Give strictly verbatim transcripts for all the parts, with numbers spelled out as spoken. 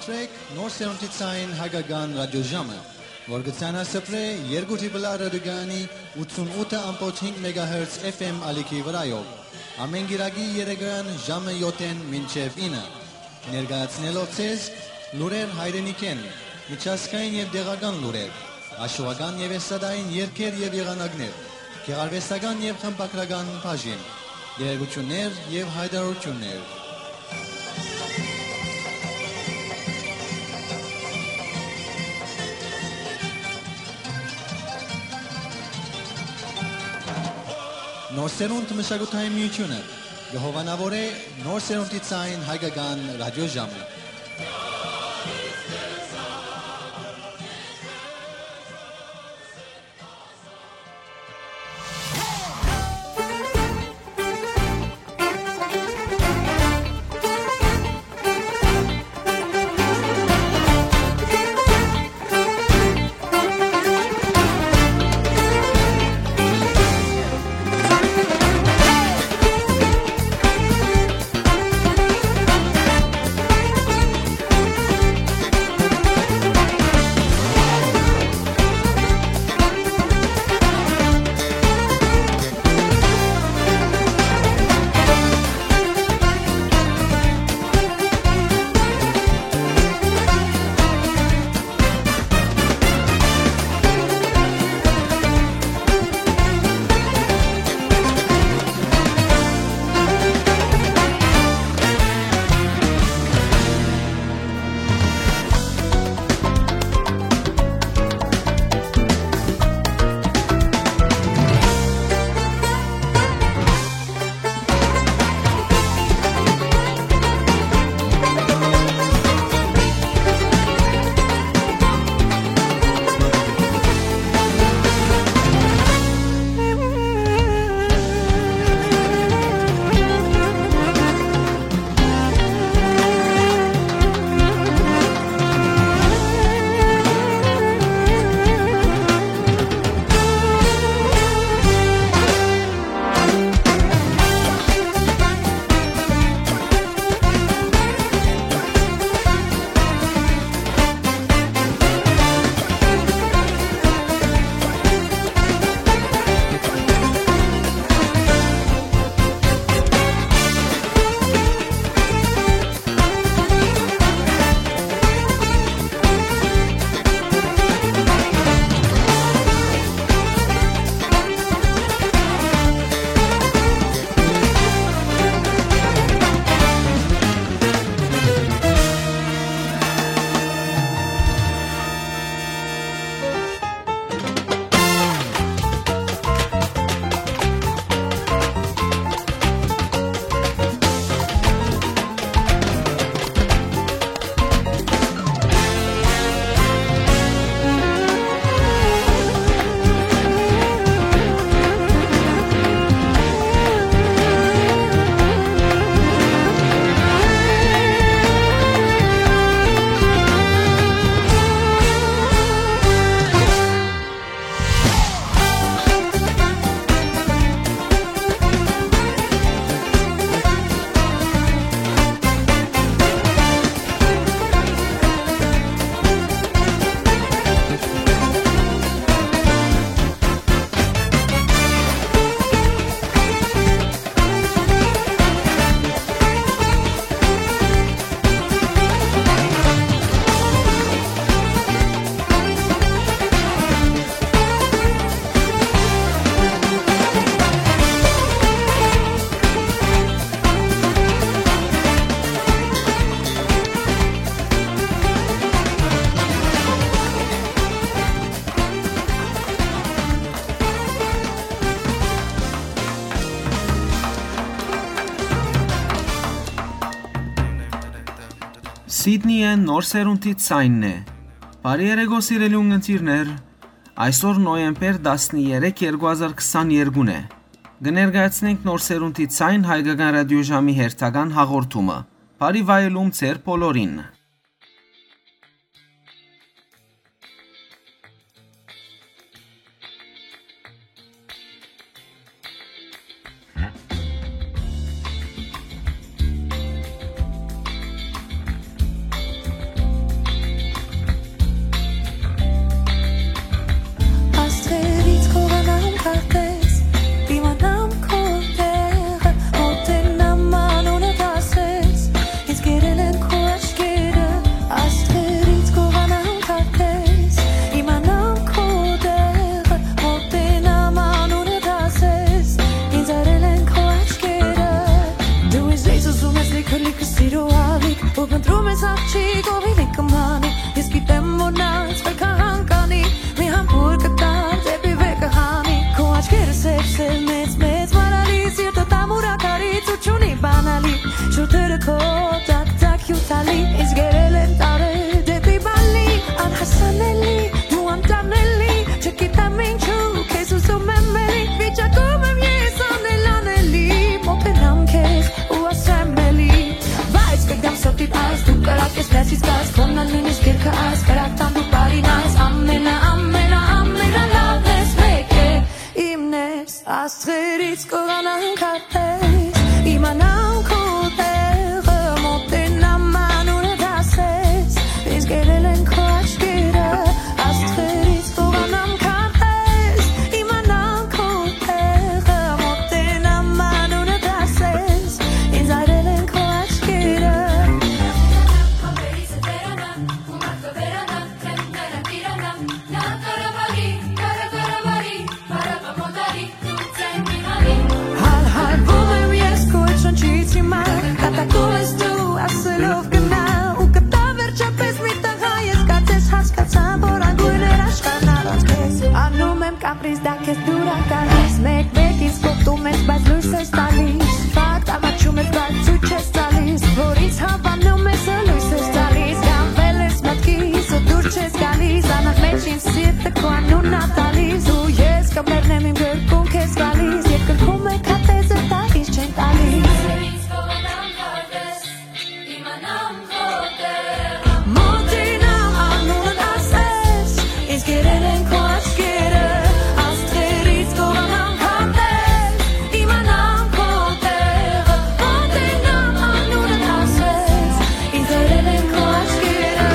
Սրեք Նոր Սերունդի Ցայն Հայկական Ռադիոժամը, որ կը ցանասփռէ երկու Տրիպլ Ա ռադիոկայանի ութսուն ութը ամբողջ հինգ մեգահերց F M ալիքի վրայով, ամէն կիրակի երեկոյան ժամը յոթ մինչեւ ինը, ներկայացնելով ձեզ լուրեր հայրենիքէն, միջազգային եւ տեղական լուրեր, հաշուական եւ էստրադային երգեր եւ եղանակներ, գեղարուեստական եւ խմբագրական բաժին, տեղեկութիւններ եւ յայտարարութիւններ։ Նոր Սերունդ մշակութային միութիւնը կը հովանաւորէ Նոր Սերունդի Ցայն Հայկական Ռադիոժամը։ Սիդնիը Նոր Սերունդի Ցայնն է։ Բարի երեկո, սիրելի ունգընտիրներ, այսօր նոյեմբեր տասներեք, երկու հազար քսաներկու է։ Կը ներկայացնենք Նոր Սերունդի Ցայն Հայկական Ռադիոժամի հերթական հաղորդումը։ Բարի վայելում ձեր բոլորին։ Լացից կաս, քոննան նույնիսկ երկը այս, կրակտան դու բարին այս, ամենա, ամենա, ամենալավն ես, մեկ է, իմն ես, աստղերից կողանան քարտեզ, իմանամ քո տեղը, մոտենամ անունդ ասես, ինձ գերել են քո աչքերը, աստղերից կողանամ քարտեզ, իմանամ քո տեղը, մոտենամ անունդ ասես, ինձ այրել են քո աչքերը։ Հալհալվում եմ ես քո այդ շնչից հիմա, կատակում ես դու, ասելով գնա, ու կտա վերջապես մի տղա, ես կարծես հասկացա, որ անգույն էր աշխարհն առանց քեզ։ Անում եմ կապրիզ, դա քեզ դուր ա գալիս, մեկ-մեկ ինձ կոպտում ես, բայց լոյս ես տալիս, ֆակտ ամաչում ես, բայց ցույց ես տալիս, որ ինձ հավանում ես, լոյս ես տալիս, գանվել ես մտքիս ու դուր չես գալիս, անըմեջ ինձ սիրտը քո անունն ա տալիս, ու ես կմեռնեմ իմ գրկում քեզ գալիս, երկնքում է քարտեզը, դա ինձ չեն տալիս։ Մոտենամ անունդ ասես, ինձ գերել են քո աչքերը, աստղերից կողանամ քարտեզ, իմանամ քո տեղը, մոտենամ անունդ ասես, ինձ գերել են քո աչքերը։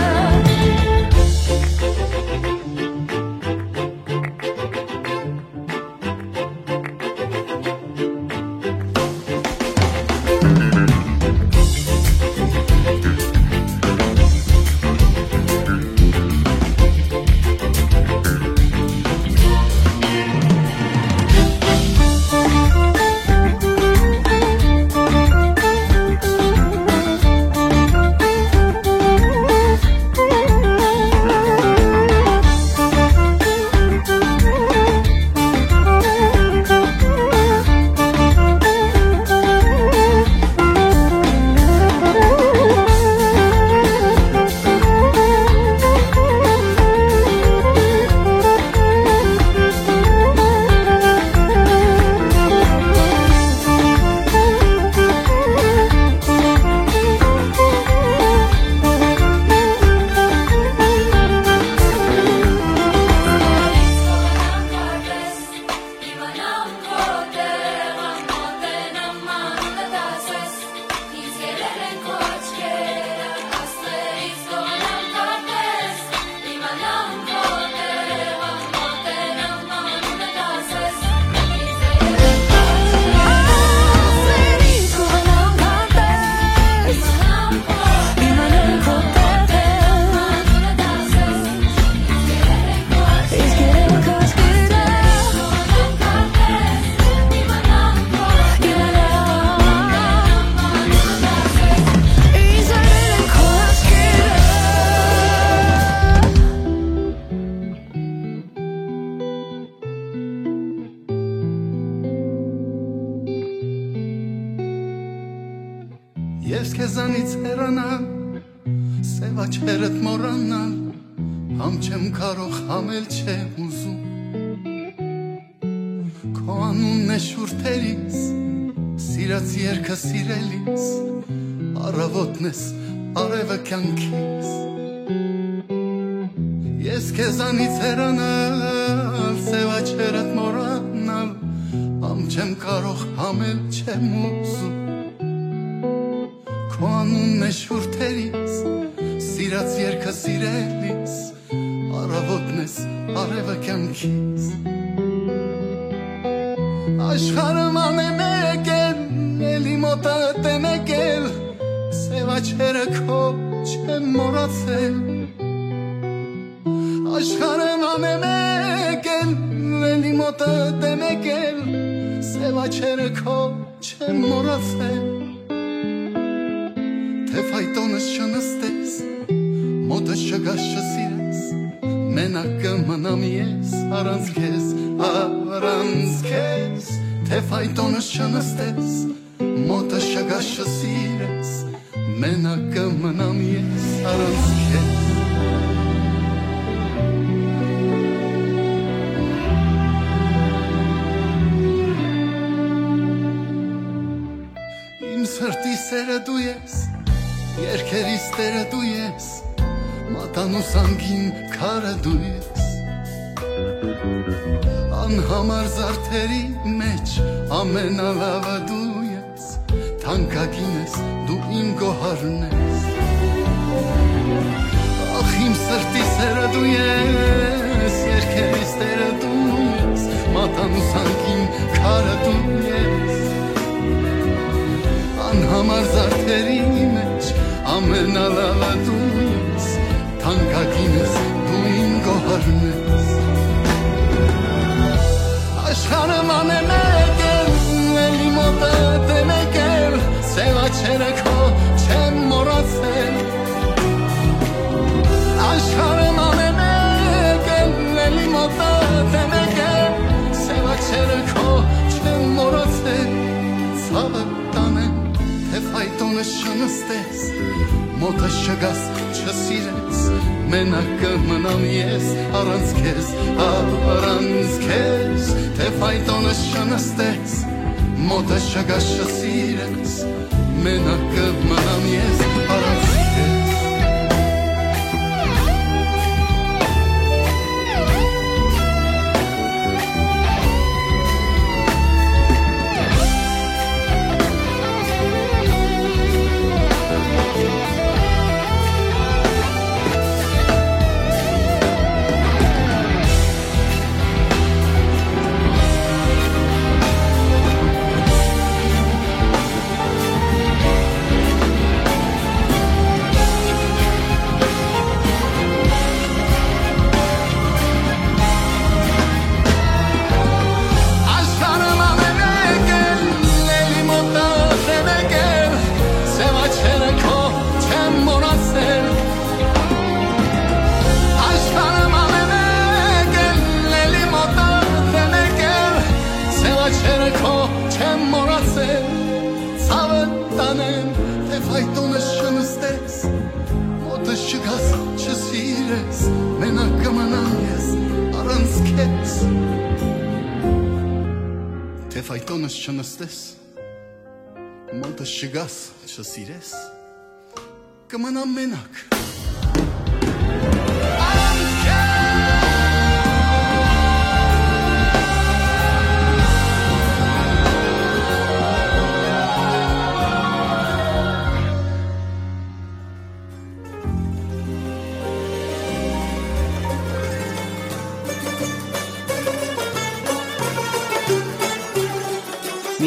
Ես քեզանից հեռանալ, սեւ աչքերդ մոռանալ, համ չեմ կարող, համ էլ չեմ ուզում։ Քո անունն է շուրթերիս, սիրած երկը սիրելիս, առավոտն ես, արևը կյանքիս։ Ես քեզանից հեռանալ, սեւ աչքերդ մոռանալ, համ չեմ կարող, համ էլ չեմ ուզում։ Քո անունն է շուրթերիս, սիրած երկը սիրելիս, առավոտն ես, արևը կյանքիս։ Աշխարհը ման է մեկ էլ, էլի մոտդ է մեկ էլ, սեւ աչքերը քո չեմ մոռացել։ Աշխարհը ման է մեկ էլ, էլի մոտդ է մեկ էլ, սեւ աչքերը քո չեմ մոռացել։ Թե ֆայտոնս չնստես, մոտս չգաս, չսիրես, մենակ կը մնամ ես առանց քեզ, առանց քեզ։ Թե ֆայտոնս չնստես, մոտս չգաս, չսիրես, մենակ կը մնամ ես առանց քեզ։ Իմ սրտի սերը դու ես, Քերիստերը դու ես, մատանու սանքին քարը դու ես, անհամար զարդերի մեջ ամենալավը դու ես, թանկագին ես, դու իմ գոհարն ես։ Ախ, իմ սրտի սերը դու ես, երկերիստերը դու ես, մատանու սանքին քարը դու ես, անհամար զարդերի մեջ ամենալավը դու ես, թանկագին ես, դու իմ գոհարն ես։ Աշխարհը մանը մեկ է, էլի մոտդ է մեկ է, սեւ աչերը քո չեմ մոռացել։ Աշխարհը մանը մեկ է, էլի մոտդ է մեկ է, սեւ աչերը քո չեմ մոռացել։ Ցաւը տանեմ, թէ ֆայտոնը չնստես, մոտը չգաս, չսիրես, մենակ կը մնամ ես առանց քեզ, առանց քեզ, թէ ֆայտոնը չնստես, մոտը չգաս, չսիրես, մենակ կը մնամ ես առանց քեզ։ Աշխարհը մանը մեկ է, էլի մոտդ է մեկ է, սեւ աչերը քո չեմ մոռացել։ Աշխարհը մանը մեկ է, էլի մոտդ է մեկ է, սեւ աչերը քո չեմ մոռացել։ Ցաւը տանեմ, թէ ֆայտոնը չնստես, մոտը չգաս, չսիրես, մենակ կը մնամ ես առանց քեզ։ Թէ ֆայտոնս չնստես, մոտը չգաս, չսիրես, կը մնամ մենակ։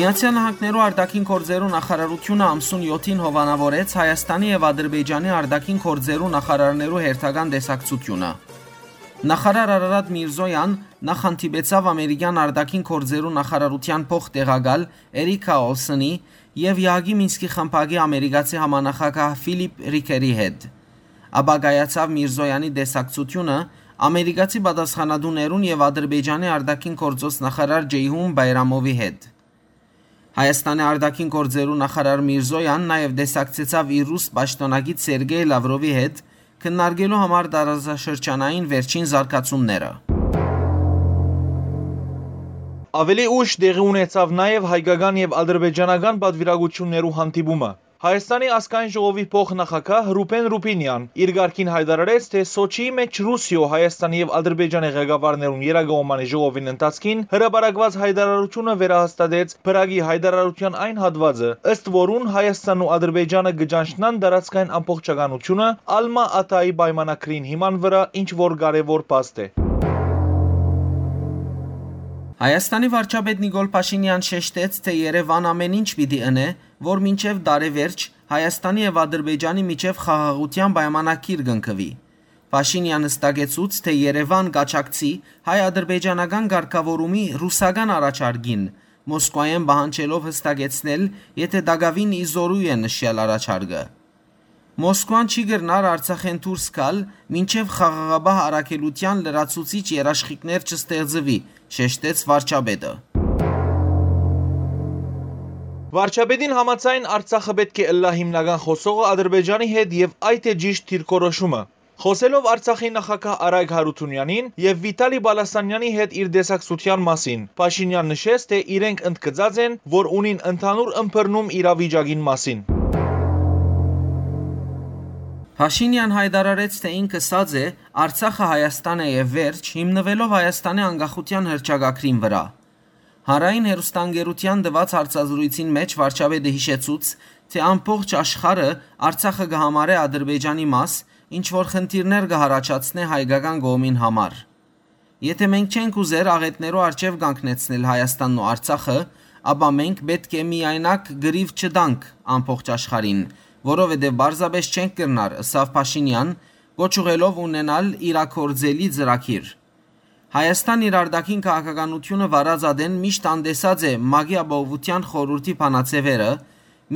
Միացեալ Նահանգներու արտաքին գործերու նախարարութիւնը ամսուն յոթին հովանաւորեց Հայաստանի եւ Ադրբեջանի արտաքին գործերու նախարարներու հերթական տեսակցութիւնը։ Նախարար Արարատ Միրզոյան նախ հանդիպեցաւ ամերիկեան արտաքին գործերու նախարարութեան փոխտեղակալ Էրիքա Օլսոնի եւ Եհակի Մինսկի խմբակի ամերիկացի համանախագահ Ֆիլիպ Ռիքերի հետ։ Ապա կայացաւ Միրզոյանի տեսակցութիւնը ամերիկացի պատասխանատուներուն եւ Ադրբեջանի արտաքին գործոց նախարար Ջեյհուն Բայրամովի հետ։ Հայաստանի արտաքին գործերու նախարար Միրզոյան նաեւ տեսակցեցաւ իր ռուս պաշտօնակից Սերգեյ Լավրովի հետ, քննարկելու համար տարածաշրջանային վերջին զարգացումները։ Աւելի ուշ տեղի ունեցաւ նաեւ հայկական եւ ադրբեջանական պատվիրակութիւններու հանդիպումը։ Հայաստանի ազգային ժողովի փոխնախագահ Ռուբեն Ռուբինեան իր կարգին յայտարարեց, թէ Սոչիի մէջ Ռուսիոյ, Հայաստանի եւ Ադրբեջանի ղեկավարներուն երկկողմանի ժողովին ընթացքին հրապարակուած յայտարարութիւնը վերահաստատեց Փրագի յայտարարութեան այն հատուածը, ըստ որուն Հայաստանն ու Ադրբեջանը կը ճանչնան տարածքային ամբողջականությունը Ալմա Աթայի պայմանագրին հիման վրայ, ինչ որ կարեւոր փաստ է։ Հայաստանի վարչապետ Նիկոլ Փաշինեան շեշտեց, թէ Երեւան ամեն ինչ պիտի ընէ, որ մինչեւ տարեվերջ Հայաստանի եւ Ադրբեջանի միջեւ խաղաղութեան պայմանագիր կնքուի։ Փաշինեան հստակեցուց, թէ Երեւան կաջակցի հայ-ադրբեջանական կարգաւորումի ռուսական առաջարկին, Մոսկվայէն պահանջելով հստակեցնել, եթէ տակաւին ի զօրու է նշյալ առաջարկը։ Մոսկվան չի կրնար Արցախէն դուրս գալ, մինչեւ խաղաղապահ առաքելութեան լրացուցիչ երաշխիքներ չստեղծուի, շեշտեց վարչապետը։ Վարչապետին համաձայն, Արցախը պէտք է ըլլայ հիմնական խօսողը Ադրբեջանի հետ եւ այդ է ճիշտ դիրքորոշումը։ Խօսելով Արցախի նախագահ Արայք Հարութունեանին եւ Վիտալի Պալասանեանի հետ իր տեսակցութեան մասին, Փաշինեան նշեց, թէ իրենք ընդգծած են, որ ունին ընդհանուր ըմբռնում իրավիճակին մասին։ Փաշինեան յայտարարեց, թէ ինք ըսած է. «Արցախը Հայաստան է եւ վերջ», հիմնուելով Հայաստանի անկախութեան հռչակագրին վրայ։ Հանրային հեռուստաընկերութեան տուած հարցազրոյցին մէջ վարչապետը յիշեցուց, թէ ամբողջ աշխարհը Արցախը կը համարէ Ադրբեջանի մաս, ինչ որ խնդիրներ կը յառաջացնէ հայկական կողմին համար։ «Եթէ մենք չենք ուզեր աղէտներու առջեւ կանգնեցնել Հայաստանն ու Արցախը, ապա մենք պէտք է միայնակ կռիւ չտանք ամբողջ աշխարհին, որովհետեւ պարզապէս չենք կրնար», ըսաւ Փաշինեան, կոչ ուղղելով ունենալ իրագործելի ծրագիր։ Հայաստան իր արտաքին քաղաքականութիւնը վարած ատեն միշտ անտեսած է ՄԱԿ-ի Ապահովութեան խորհուրդի բանաձեւերը,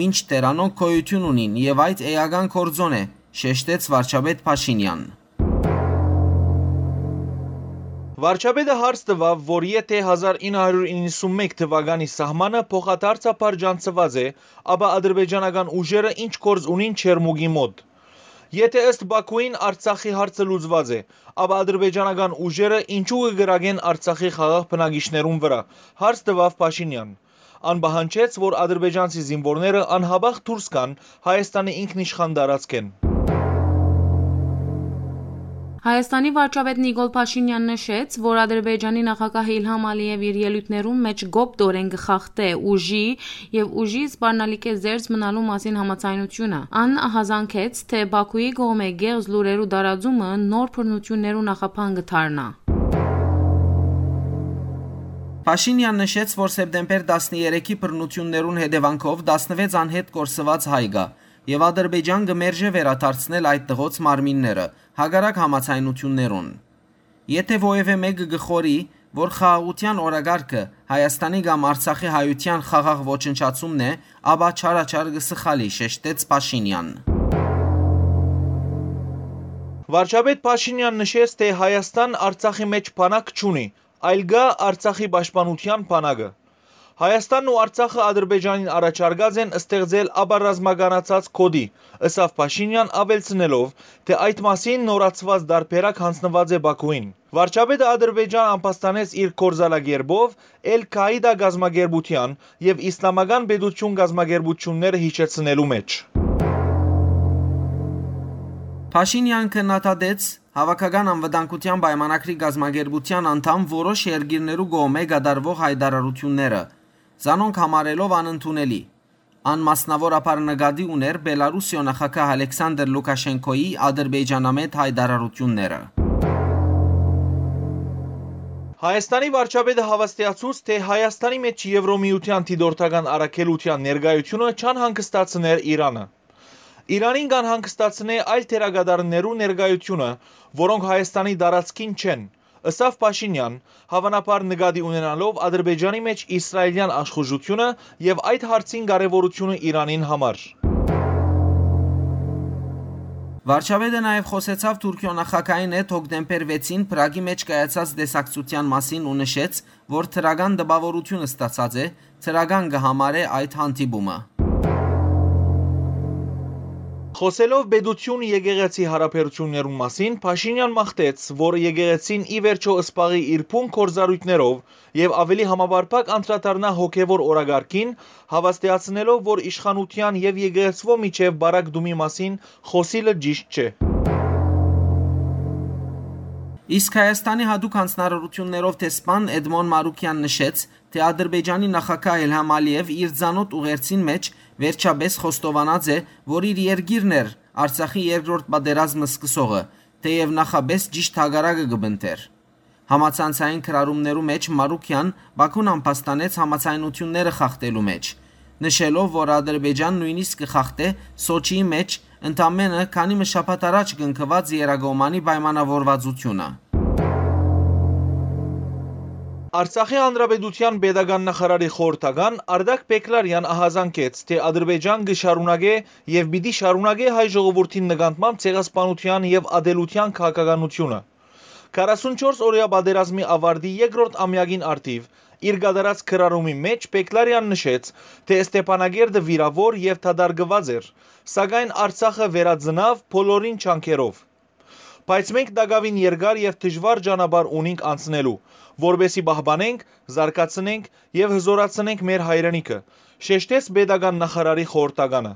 մինչդեռ անոնք գոյութիւն ունին եւ այդ էական գործոն է, շեշտեց վարչապետ Փաշինեան։ Վարչապետը հարց տուաւ, որ եթէ հազար ինը հարիւր իննսունմէկ թուականի սահմանը փոխադարձաբար ճանչցուած է, ապա ադրբեջանական ուժերը ինչ գործ ունին Չերմուկի մօտ։ Եթէ ըստ Բաքուին Արցախի հարցը լուծուած է, ապա ադրբեջանական ուժերը ինչու կը կրակեն Արցախի խաղաղ բնակիչներուն վրայ, հարց տուաւ Փաշինեան։ Ան պահանջեց, որ ադրբեջանցի զինուորները անհապաղ դուրս գան Հայաստանի ինքնիշխան տարածքէն։ Հայաստանի վարչապետ Նիկոլ Փաշինեան նշեց, որ Ադրբեջանի նախագահ Իլհամ Ալիեւ իր ելոյթներուն մէջ կոպտորեն կը խախտէ ուժի եւ ուժի սպառնալիքէ զերծ մնալու մասին համաձայնությունը։ Ան ահազանգեց, թէ Բաքուի կողմէ կեղծ լուրերու տարածումը նոր բռնութիւններու նախապան կը դառնայ։ Փաշինեան նշեց, որ սեպտեմբեր տասներեքի բռնութիւններուն հետեւանքով տասնվեց անհետ կորսուած հայ կայ եւ Ադրբեջան կը մերժէ վերադարձնել այդ տղոց մարմինները, հակառակ համաձայնութիւններուն։ Եթէ որեւէ մէկը կը խորհի, որ խաղաղութեան օրակարգը Հայաստանի կամ Արցախի հայութեան խաղաղ ոչնչացումն է, ապա չարաչար կը սխալի, շեշտեց Փաշինեան։ Վարչապետ Փաշինեան նշեց, թէ Հայաստան Արցախի մէջ բանակ չունի, այլ կայ Արցախի պաշտպանութեան բանակը։ Հայաստանն ու Արցախը Ադրբեջանին առաջարկած են ստեղծել ապառազմականացած գօտի, ըսաւ Փաշինեան, աւելցնելով, թէ այդ մասին նորացուած տարբերակ յանձնուած է Բաքուին։ Վարչապետը Ադրբեջան ամբաստանեց իր գործելակերպով Էլ Քաիդա կազմակերպութեան եւ Իսլամական պետութիւն կազմակերպութիւնները յիշեցնելու մէջ։ Փաշինեան քննադատեց Հաւաքական անվտանգութեան պայմանագրի կազմակերպութեան անդամ որոշ երկիրներու կողմէ կատարուող յայտարարութիւնները, զանոնք համարելով անընդունելի։ Ան մասնաւորաբար նկատի ունէր Բելարուսիոյ նախագահ Ալեքսանդր Լուքաշենկոյի ադրբեջանամետ յայտարարութիւնները։ Հայաստանի վարչապետը հաւաստիացուց, թէ Հայաստանի մէջ Եվրոմիութեան դիտորդական առաքելութեան ներկայութիւնը չանհանգստացներ Իրանը։ Իրանին կ'անհանգստացնէ այլ դերակատարներու ներկայութիւնը, որոնք Հայաստանի տարածքին չեն, ըսաւ Փաշինեան, հաւանաբար նկատի ունենալով Ադրբեջանի մէջ իսրայելեան աշխուժութիւնը եւ այդ հարցին կարեւորութիւնը Իրանին համար։ Վարչապետը նաեւ խօսեցաւ Թուրքիոյ նախագահին հետ հոկտեմբեր վեցին Պրագի մէջ կայացած տեսակցութեան մասին ու նշեց, որ դրական տպաւորութիւն ստացած է, դրական կը համարէ այդ հանդիպումը։ Խօսելով պետութիւն-եկեղեցի յարաբերութիւններուն մասին, Փաշինեան մաղթեց, որ եկեղեցին ի վերջոյ զբաղի իր բուն գործառոյթներով եւ աւելի համապարփակ անդրադառնայ հոգեւոր օրակարգին, հաւաստիացնելով, որ իշխանութեան եւ եկեղեցւոյ միջեւ պարագտումի մասին խօսիլը ճիշդ չէ։ Իսկ Հայաստանի յատուկ յանձնարարութիւններով դեսպան Էդմոն Մարուկեան նշեց, թէ Ադրբեջանի նախագահ Իլհամ Ալիեւ իր ծանօթ ուղերձին մէջ վերջապէս խոստովանած է, որ իր երկիրն էր Արցախի երկրորդ պատերազմը սկսողը, թէեւ նախապէս ճիշդ հակառակը կը պնդէր։ Համացանցային գրառումներու մէջ Մարուկեան Բաքուն ամբաստանեց համաձայնութիւնները խախտելու մէջ, նշելով, որ Ադրբեջան նոյնիսկ կը խախտէ Սոչիի մէջ ընդամենը քանի մը շաբաթ առաջ կնքուած եռակողմանի պայմանաւորուածութիւնը։ Արցախի Հանրապետութեան պետական նախարարի խորհրդական Արտակ Պեկլարեան ահազանգեց, թէ Ադրբեջան կը շարունակէ եւ պիտի շարունակէ հայ ժողովուրդին նկատմամբ ցեղասպանութեան եւ ատելութեան քաղաքականութիւնը։ Քառասունչորս օրեայ պատերազմի աւարտի երկրորդ ամեակին առթիւ իր կատարած գրառումի մէջ Պեկլարեան նշեց, թէ Ստեփանակերտը վիրաւոր եւ դատարկուած էր, սակայն Արցախը վերածնաւ բոլորին ջանքերով։ Բայց մենք տակաւին երկար եւ դժուար ճանապարհ ունինք անցնելու, որպէսզի պահպանենք, զարգացնենք եւ հզօրացնենք մեր հայրենիքը, շեշտեց պետական նախարարի խորհրդականը։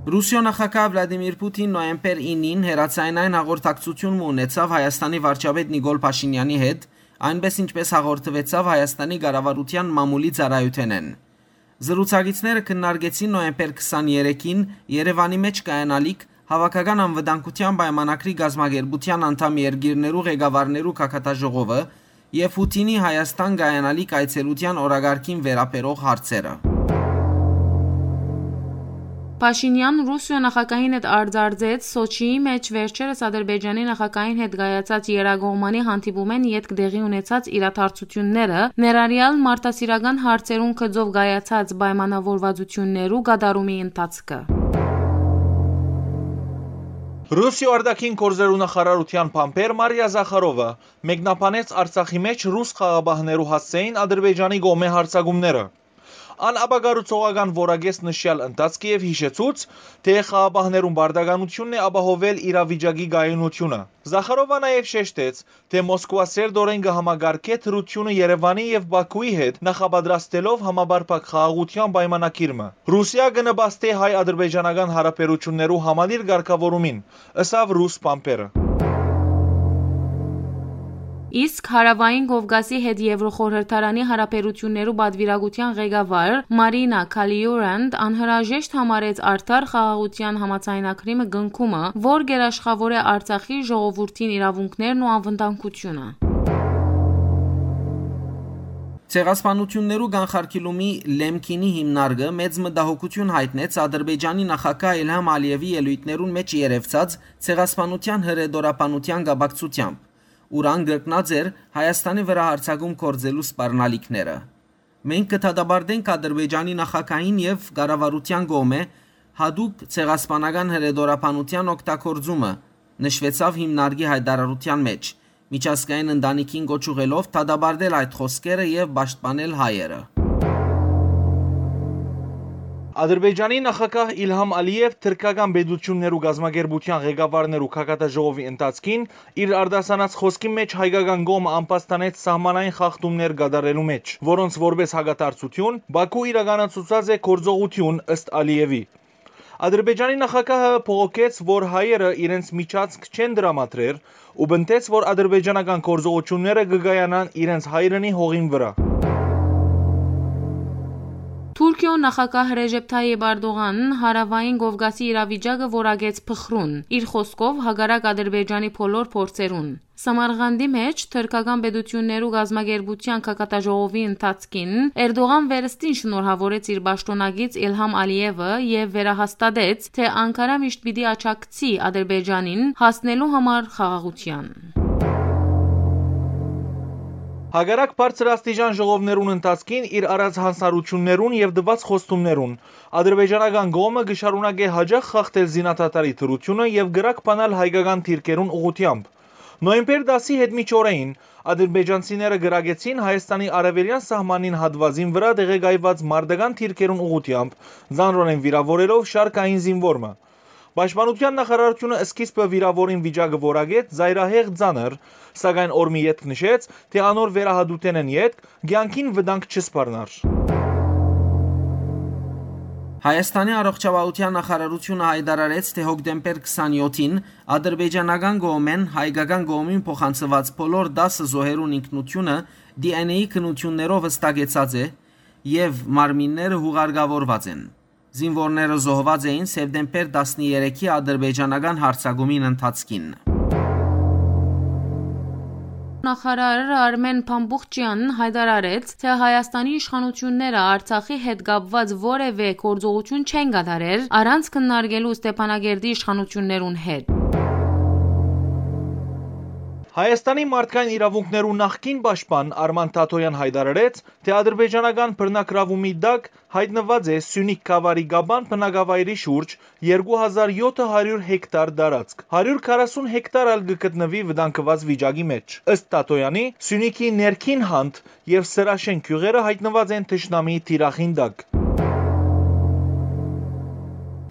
Ռուսիոյ նախագահ Վլադիմիր Պութին նոյեմբեր իննին հեռաձայնային հաղորդակցություն մը ունեցաւ Հայաստանի վարչապետ Նիկոլ Փաշինեանի հետ, այնպէս ինչպէս հաղորդուեցաւ Հայաստանի կառավարութեան մամուլի ծառայութենէն։ Զրուցակիցները քննարկեցին նոյեմբեր քսաներեքին Երեւանի մէջ կայանալիք Հաւաքական անվտանգութեան պայմանագրի կազմակերպութեան անդամ երկիրներու ղեկավարներու գագաթաժողովը եւ Պութինի Հայաստան կայանալիք այցելութեան օրակարգին վերաբերող հարցերը։ Փաշինեան Ռուսիոյ նախագահին հետ արձարծեց Սոչիի մէջ վերջերս Ադրբեջանի նախագահին հետ կայացած եռակողմանի հանդիպումէն ետք տեղի ունեցած իրադարձութիւնները, ներառեալ մարդասիրական հարցերուն գծով կայացած պայմանաւորուածութիւններու կատարումի ընթացքը։ Ռուսիոյ արտաքին գործերու նախարարութեան բանբեր Մարիա Զախարովը մեկնաբանեց Արցախի մէջ ռուս խաղապահներու հասցէին Ադրբեջանի կողմէ յարձակումները։ Ան ապակառուցողական որակեց նշեալ ընթացքը եւ յիշեցուց, թէ խաղապահներուն պարտականութիւնն է ապահովել իրավիճակի կայունութիւնը։ Զախարովը նաեւ շեշտեց, թէ Մոսկուա սերտօրէն կը համակարգէ դրութիւնը Երեւանի եւ Բաքուի հետ՝ նախապատրաստելով համապարփակ խաղաղութեան պայմանագիր մը։ Ռուսիա կը նպաստէ հայ-ադրբեջանական յարաբերութիւններու համալիր կարգաւորումին, ըսաւ ռուս բանբերը։ Իսկ Հարաւային Կովկասի հետ Եվրոխորհրդարանի յարաբերութիւններու պատուիրակութեան ղեկավար Մարինա Քալիուրանդ անհրաժեշտ համարեց արդար խաղաղութեան համաձայնագրի մը կնքումը, որ գերաշխաւորէ Արցախի ժողովուրդին իրաւունքներն ու անվտանգութիւնը։ Ցեղասպանութիւններու կանխարգիլումի Լեմքինի հիմնարկը մեծ մտահոգութիւն յայտնեց Ադրբեջանի նախագահ Իլհամ Ալիեւի ելոյթներուն մէջ երեւցած ցեղասպանութեան հրետորաբանութեան կապակցութեամբ, ուր ան կրկնած էր Հայաստանի վրայ յարձակում գործելու սպառնալիքները։ «Մենք կը դատապարտենք Ադրբեջանի նախագահին եւ կառավարութեան կողմէ յատուկ ցեղասպանական հրետորաբանութեան օգտագործումը», նշուեցաւ հիմնարկի յայտարարութեան մէջ, միջազգային ընտանիքին կոչ ուղղելով դատապարտել այդ խօսքերը եւ պաշտպանել հայերը։ Ադրբեջանի նախագահ Իլհամ Ալիեւ թրքական պետութիւններու կազմակերպութեան ղեկավարներու գագաթաժողովի ընթացքին իր արտասանած խօսքին մէջ հայկական կողմը ամբաստանեց սահմանային խախտումներ կատարելու մէջ, որոնց որպէս հակադարձութիւն Բաքու իրականացուցած է գործողութիւն, ըստ Ալիեւի։ Ադրբեջանի նախագահը բողոքեց, որ հայերը իրենց միջանցք չեն տրամադրեր ու պնդեց, որ ադրբեջանական գործողութիւնները կը կայանան իրենց հայրենի հողին վրայ։ Թուրքիոյ նախագահ Ռեժեփ Թայիպ Արդողան Հարաւային Կովկասի իրավիճակը որակեց փխրուն, իր խօսքով՝ հակառակ Ադրբեջանի բոլոր փորձերուն։ Սամարղանդի մէջ թրքական պետութիւններու կազմակերպութեան գագաթաժողովի ընթացքին Էրդողան վերստին շնորհաւորեց իր պաշտօնակից Իլհամ Ալիեւը եւ վերահաստատեց, թէ Անկարա միշտ պիտի աջակցի Ադրբեջանին հասնելու համար խաղաղութեան։ Հակառակ բարձրաստիճան ժողովներուն ընթացքին իր արած յանձնառութիւններուն եւ տուած խոստումներուն, ադրբեջանական կողմը կը շարունակէ յաճախ խախտել զինադադարի դրութիւնը եւ կրակ բանալ հայկական դիրքերուն ուղղութեամբ։ Նոյեմբեր տասի հետ մինչ օրէին ադրբեջանցիները կրակեցին Հայաստանի արեւելեան սահմանին հատուածին վրայ տեղակայուած մարտական դիրքերուն ուղղութեամբ, ծանրօրէն վիրաւորելով շարքային զինուոր մը։ Պաշտպանութեան նախարարութիւնը սկիզբը վիրաւորին վիճակը որակեց ծայրահեղ ծանր, սակայն օր մը ետք նշեց, թէ անոր վերահատութենէն ետք կեանքին վտանգ չսպառնար։ Հայաստանի առողջապահութեան նախարարութիւնը յայտարարեց, թէ հոկտեմբեր քսանեթին ադրբեջանական կողմէն հայկական կողմին փոխանցուած բոլոր տասը զոհերուն ինքնութիւնը D N A քննութիւններով վստակեցած է եւ մարմինները յուղարկաւորուած են։ Զինուորները զոհուած էին սեպտեմբեր տասներեքի ադրբեջանական յարձակումին ընթացքին։ Նախարար Արմեն Փամբուխչեան յայտարարեց, թէ Հայաստանի իշխանութիւնները Արցախի հետ կապուած որեւէ գործողութիւն չեն կատարեր՝ առանց քննարկելու Ստեփանակերտի իշխանութիւններուն հետ։ Հայաստանի մարդկային իրաւունքներու նախկին պաշտպան Արման Թաթոյան յայտարարեց, թէ ադրբեջանական բռնագրաւումի տակ յայտնուած է Սիւնիք գաւառի Կապան բնակավայրի շուրջ երկու հազար յոթ հարիւր հեկտար տարածք։ Հարիւր քառասուն հեկտար ալ կը գտնուի վտանգուած վիճակի մէջ։ Ըստ Թաթոյանի, Սիւնիքի ներքին հանդ եւ Սրաշեն գիւղերը յայտնուած են թշնամիի թիրախին տակ։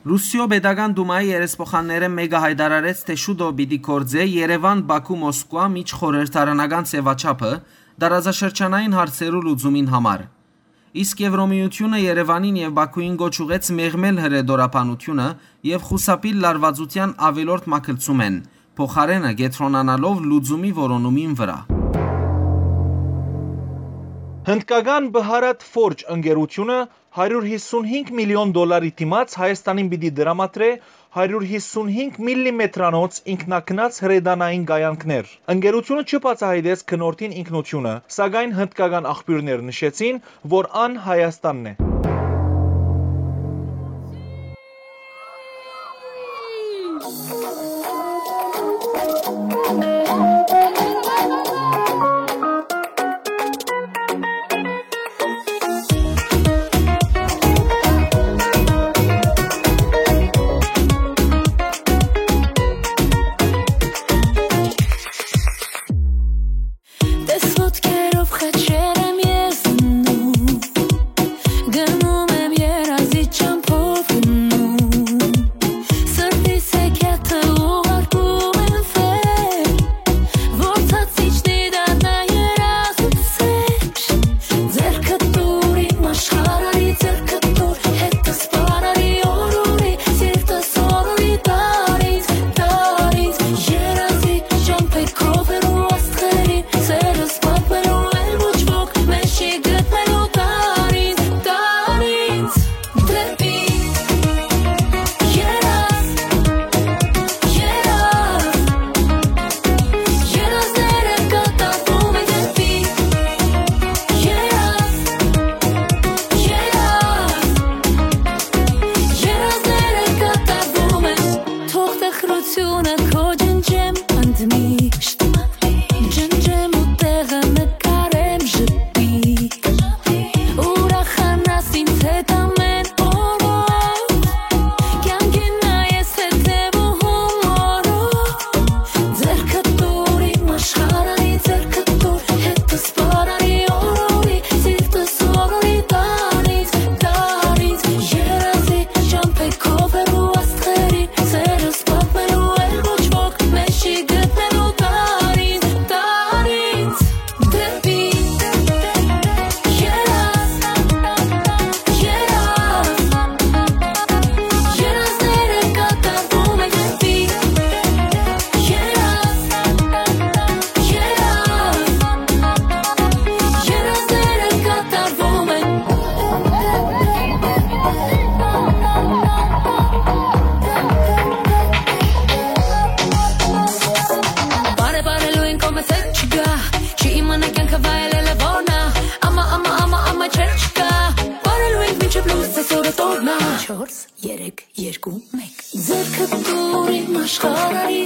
Ռուսիոյ Պետական Դումայի երեսփոխաններէն մէկը յայտարարեց, թէ շուտով պիտի գործէ Երեւան-Բաքու-Մոսկուա միջխորհրդարանական ձեւաչափը՝ տարածաշրջանային հարցերու լուծումին համար։ Իսկ Եվրոմիութիւնը Երեւանին եւ Բաքուին կոչ ուղղեց մեղմել հրետորաբանութիւնը եւ խուսափիլ լարուածութեան աւելորդ մագլցումէն, փոխարէնը կեդրոնանալով լուծումի որոնումին վրայ։ Հնդկական Բհարատ Ֆորջ ընկերութիւնը հարիւր յիսունհինգ միլիոն դոլարի դիմաց Հայաստանին պիտի տրամադրէ հարիւր յիսունհինգ միլլիմետրանոց ինքնագնաց հրետանային կայանքներ։ Ընկերութիւնը չի բացայայտեց գնորդին ինքնութիւնը, սակայն հնդկական աղբիւրներ նշեցին, որ ան Հայաստանն է։ Տես ոտքերով խաչեր եմ ես դնում, գնում եմ երազի ճամբով գնում, սրտիս հեքիաթը ուղարկում եմ վեր, որ ցած իջնի դառնա երազուց սեր, ձեռքը տուր իմ աշխարհարի, ձեռքը տուր հետս պարարի օրորի, սիրտս օրորի տար ինձ, տար ինձ, երազի ճամբեքով հեռու աստղերին, սերս պատմելու էլ ոչ ոք մեզ չի գտնելու, տար ինձ, տար ինձ դեպի երազ, երազ, երազները կատարվում են դեպի երազ, երազ, երազները կատարվում են, թող տխրությունը քո ջնջեմ ընդմիշտ, ջնջեմ ու տեղը նկարեմ ժպիտ, ուրախանաս ինձ հետ ամեն օրով, կյանքին նայես հետևում օրով, ձեռքը տուր իմ աշխարհարի, ձեռքը տուր հետս պարարի օրորի, սիրտս օրորի տար ինձ, տար ինձ, երազի ճամբեքով հեռու աստղերին, սերս պատմելու էլ ոչ ոք մեզ չի գտնելու, տար ինձ, տար ինձ դեպի երազ, երազ, երազները կատարվում են դեպի երազ, երազ, երազները կատարվում են։ Բարեբարելու են կողմս հետ չկա, չի իմանա կյանքը վայելելը որն ա, ամա, ամա, ամա, ամա չեր չկա, բարելու ենք մինչև լույս այսօրը տորնա։ Չորս, երեք, երկու, մեկ։ Ձեռքը տուր իմ աշխարհարի,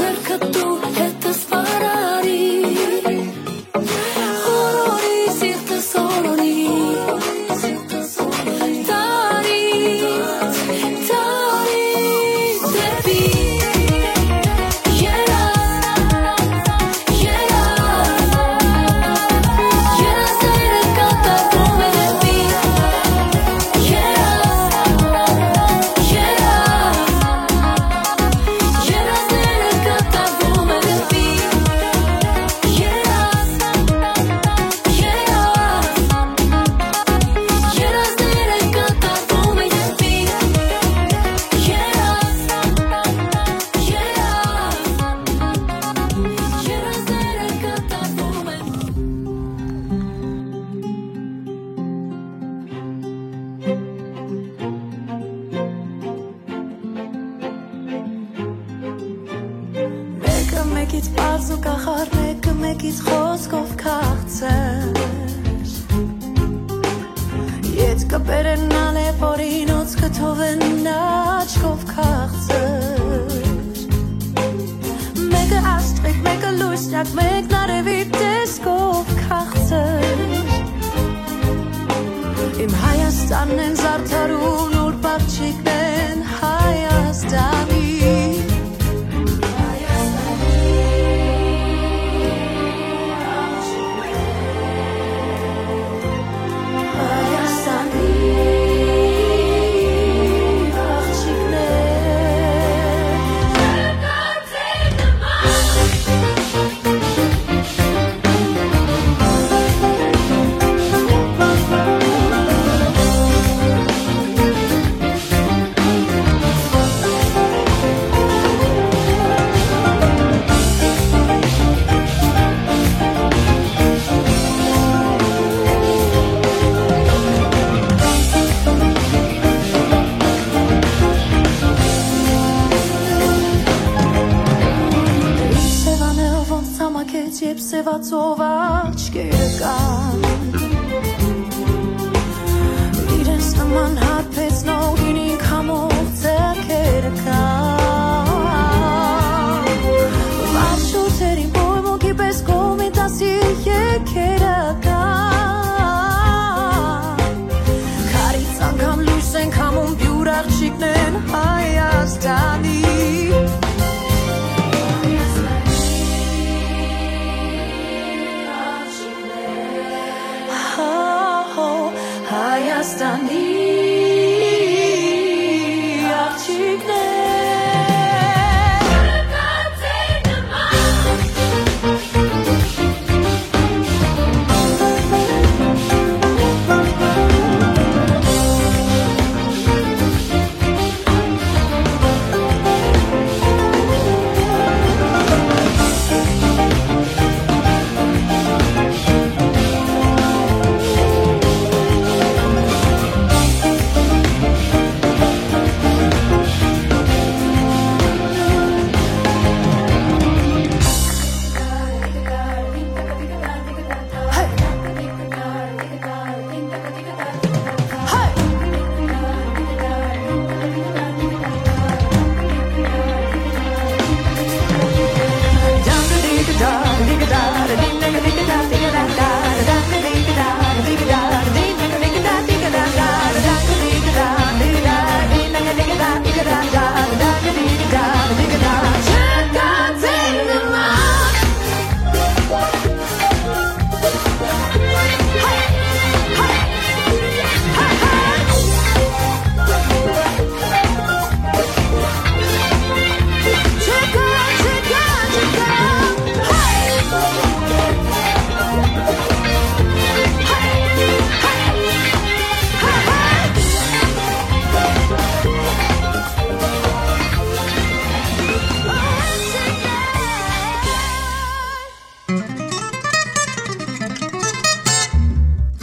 ձեռքը տուր հետս պարարի, օրորի սիրտս օրորի, տար ինձ, տար ինձ դեպի երազ, երազ, երազները կատարվում են դեպի երազ, երազ, երազները կատարվում են դեպի երազ, երազ, երազները կատարվում են դեպի երազ, երազ, երազները կատարվում են։ Մեկը մեկից պարզ ու կախարդ, մեկը մեկից խոսքով քաղցր։ Ետքը պերենալ է, որ ինոց կթողեն աչքով քաղցր։ Մեկը աստղիկ, մեկը լույսնյակ, մեկն արևի տեսքով քաղցր։ Իմ Հայաստանն են զարդարուն, ուր պարչիկն են Հայաստանի։ Հայաստանի աղջիկներ։ Համակեց, երբ սեւացող աչքերը կան, իրենց նման հարբեցնող ինքամով ձեռքերը կան, վարժուտերին պոյմունքի պես կողմի դասի եկերը կան, քարից անգամ լույս են քամում, բիւր աղջիկներն Հայաստանի։ Հայաստանի աղջիկներ։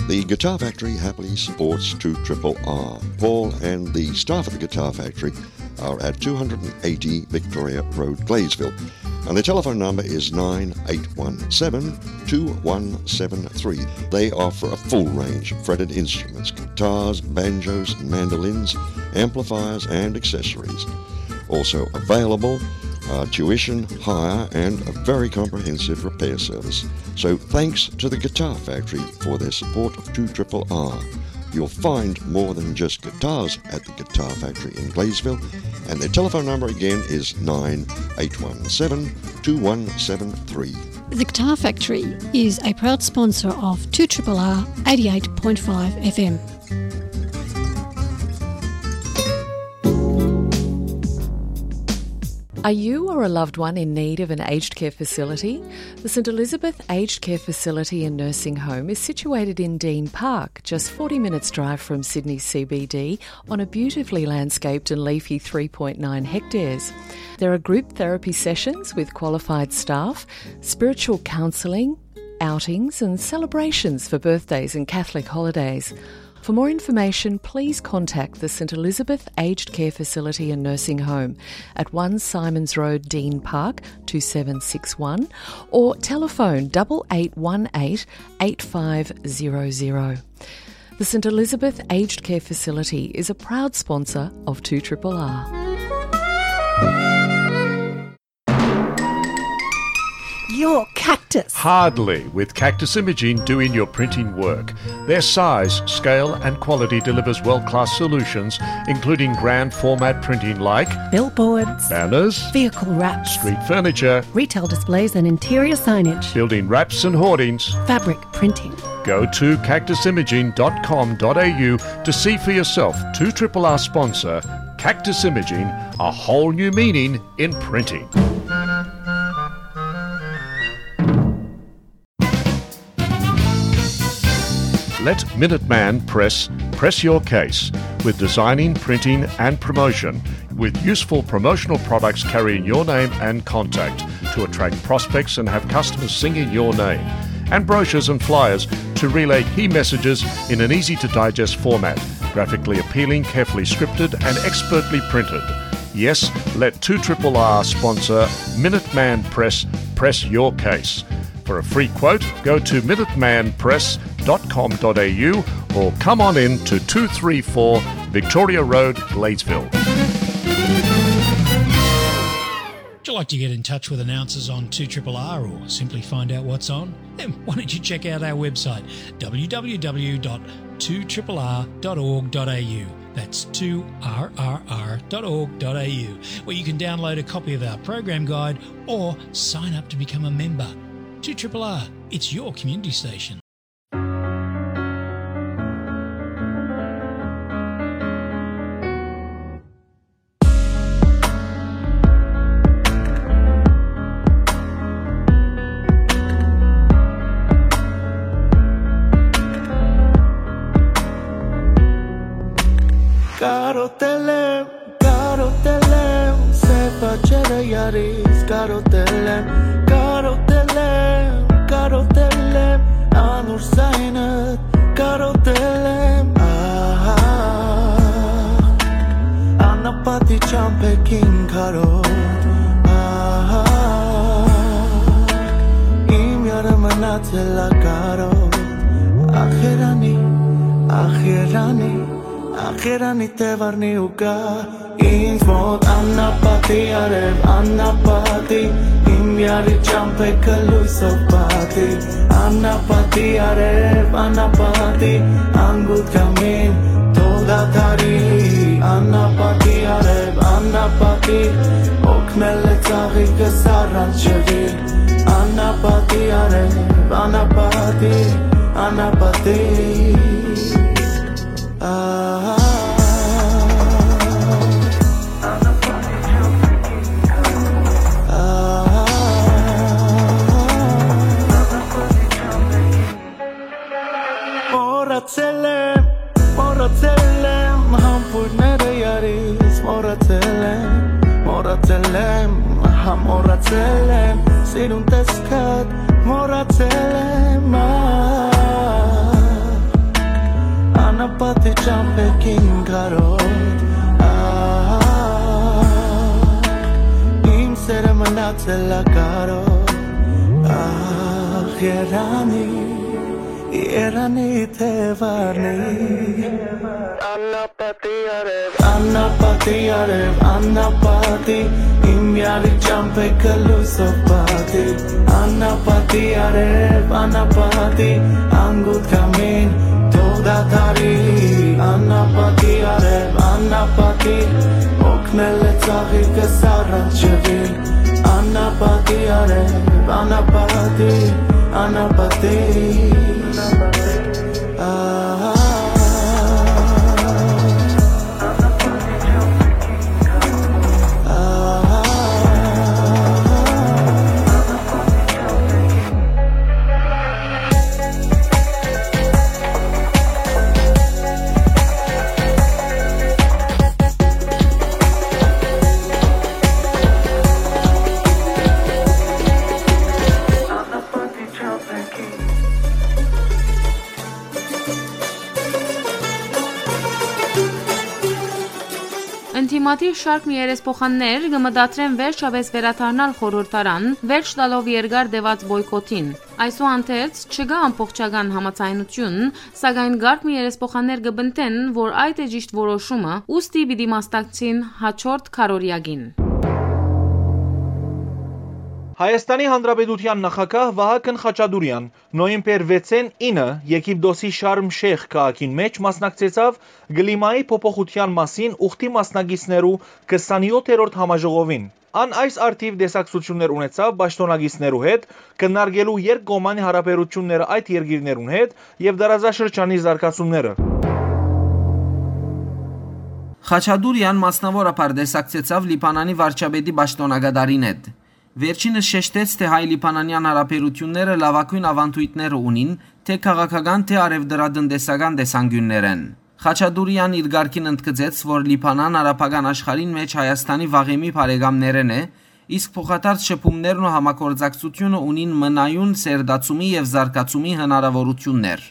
The Guitar Factory happily supports two triple R. Paul and the staff at the Guitar Factory are at two hundred and eighty Victoria Road, Gladesville. And the telephone number is nine eight one seven, two one seven three. They offer a full range of fretted instruments, guitars, banjos, mandolins, amplifiers, and accessories. Also available, uh, tuition, hire, and a very comprehensive repair service. So thanks to the Guitar Factory for their support of two triple R. You'll find more than just guitars at the Guitar Factory in Gladesville, and their telephone number again is nine eight one seven, two one seven three. The Guitar Factory is a proud sponsor of two triple R eighty-eight point five F M. Are you or a loved one in need of an aged care facility? The St Elizabeth Aged Care Facility and Nursing Home is situated in Dean Park, just forty minutes' drive from Sydney C B D, on a beautifully landscaped and leafy three point nine hectares. There are group therapy sessions with qualified staff, spiritual counselling, outings and celebrations for birthdays and Catholic holidays. For more information, please contact the St Elizabeth Aged Care Facility and Nursing Home at one Symonds Road, Dean Park, two seven six one, or telephone double eight one eight, eight five zero zero. The St Elizabeth Aged Care Facility is a proud sponsor of two triple R. Your Cactus. Hardly, with Cactus Imaging doing your printing work. Their size, scale, and quality delivers world-class solutions, including grand format printing like billboards, banners, vehicle wraps, street furniture, retail displays and interior signage, building wraps and hoardings, fabric printing. Go to cactus imaging dot com dot a u to see for yourself two triple R sponsor Cactus Imaging, a whole new meaning in printing. Let Minuteman Press press your case with designing, printing, and promotion, with useful promotional products carrying your name and contact to attract prospects and have customers singing your name, and brochures and flyers to relay key messages in an easy to digest format, graphically appealing, carefully scripted, and expertly printed. Yes, let two triple R sponsor Minuteman Press press your case. For a free quote, go to minutemanpress.com.au or come on in to two three four Victoria Road, Gladesville. Would you like to get in touch with announcers on two triple R or simply find out what's on? Then why don't you check out our website, w w w dot two triple r dot org dot a u. That's two r r r dot org dot a u, where you can download a copy of our program guide or sign up to become a member. two triple R, it's your community station. Կարոտել եմ, կարոտել եմ, սեփ աչերը յարից, կարոտել եմ, կարոտել եմ, կարոտել եմ, անուր զայնը կարոտել եմ, ահա, անապատի ճամփեքին քարոտ, ահա, իմ յարը մնացել ա կարոտ, ախերանի, ախերանի, ախերանի թեվարնի ու կա, ինձ մոտ անապատի արև, անապատի, իմ յարի ճամփեքը լոյսով պատի, անապատի արև, անապատի, անգութ կամին, թող դադարի, անապատի արև, անապատի, օգնել է ծաղիկս առանց ջրի, անապատի արև, անապատի, անապատի, ահա, ահա, մոռացել եմ, մոռացել եմ, համբույրները յարից մոռացել եմ, մոռացել եմ, հա, մոռացել եմ, սիրուն տեսքդ մոռացել եմ, ա, անապատի ճամփեքին քարոտ, ա, իմ սերը մնացել ա կարոտ, ա, երանի, երանի թեվարնի, անապատի արև, անապատի արև, անապատի, իմ յարի ճամփեքը լոյսով պատի, անապատի արև, անապատի, անգութ կամին, թող դադարի, անապատի արև, անապատի, օգնել է ծաղիկս առանց ջրի, անապատի արև, անապատի, անապատի, ահա, ահա, Ընդդիմադիր շարք մը երեսփոխաններ կը մտադրեն վերջապէս վերադառնալ խորհրդարան, վերջ տալով երկար տեւած պոյկոթին։ Այսուհանդերձ, չկայ ամբողջական համաձայնութիւն, սակայն կարգ մը երեսփոխաններ կը պնդեն, որ այդ է ճիշտ որոշումը, ուստի պիտի մասնակցին յաջորդ քարորիակին։ Հայաստանի Հանրապետութեան նախագահ Վահագն Խաչատուրեան նոյեմբեր վեցին ինը Եգիպտոսի Շարմ Շեյխ քաղաքին մէջ մասնակցեցաւ կլիմայի փոփոխութեան մասին ուխտի մասնակիցներու քսանեօթերորդ համաժողովին։ Ան այս առթիւ տեսակցութիւններ ունեցաւ պաշտօնակիցներու հետ, քննարկելու երկկողմանի հարաբերութիւնները այդ երկիրներուն հետ եւ տարածաշրջանի զարգացումները։ Խաչատուրեան մասնաւորաբար տեսակցեցաւ Լիբանանի վարչապետի պաշտօնակատարին հետ։ Վերջինս շեշտեց, թէ հայ-լիբանանեան հարաբերութիւնները լաւագոյն աւանդոյթները ունին, թէ քաղաքական, թէ առեւտրատնտեսական տեսանկիւններէն։ Խաչատուրեան իր կարգին ընդգծեց, որ Լիբանան արաբական աշխարհին մէջ Հայաստանի վաղեմի բարեկամներէն է, իսկ փոխադարձ շփումներն ու համագործակցութիւնը ունին մնայուն սերտացումի եւ զարգացումի հնարաւորութիւններ։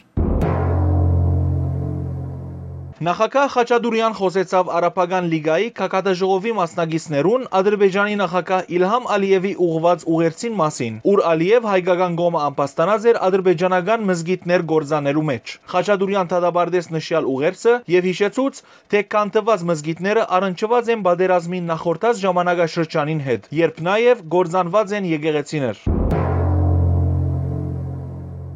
Նախագահ Խաչատուրեան խօսեցաւ Արաբական լիգայի գագաթաժողովի մասնակիցներուն Ադրբեջանի նախագահ Իլհամ Ալիեւի ուղղուած ուղերձին մասին, ուր Ալիեւ հայկական կողմը ամբաստանած էր ադրբեջանական մզկիթներ կործանելու մէջ։ Խաչատուրեան դատապարտեց նշեալ ուղերձը եւ յիշեցուց, թէ քանդուած մզկիթները առնչուած են պատերազմին նախորդած ժամանակաշրջանին հետ, երբ նաեւ կործանուած են եկեղեցիներ։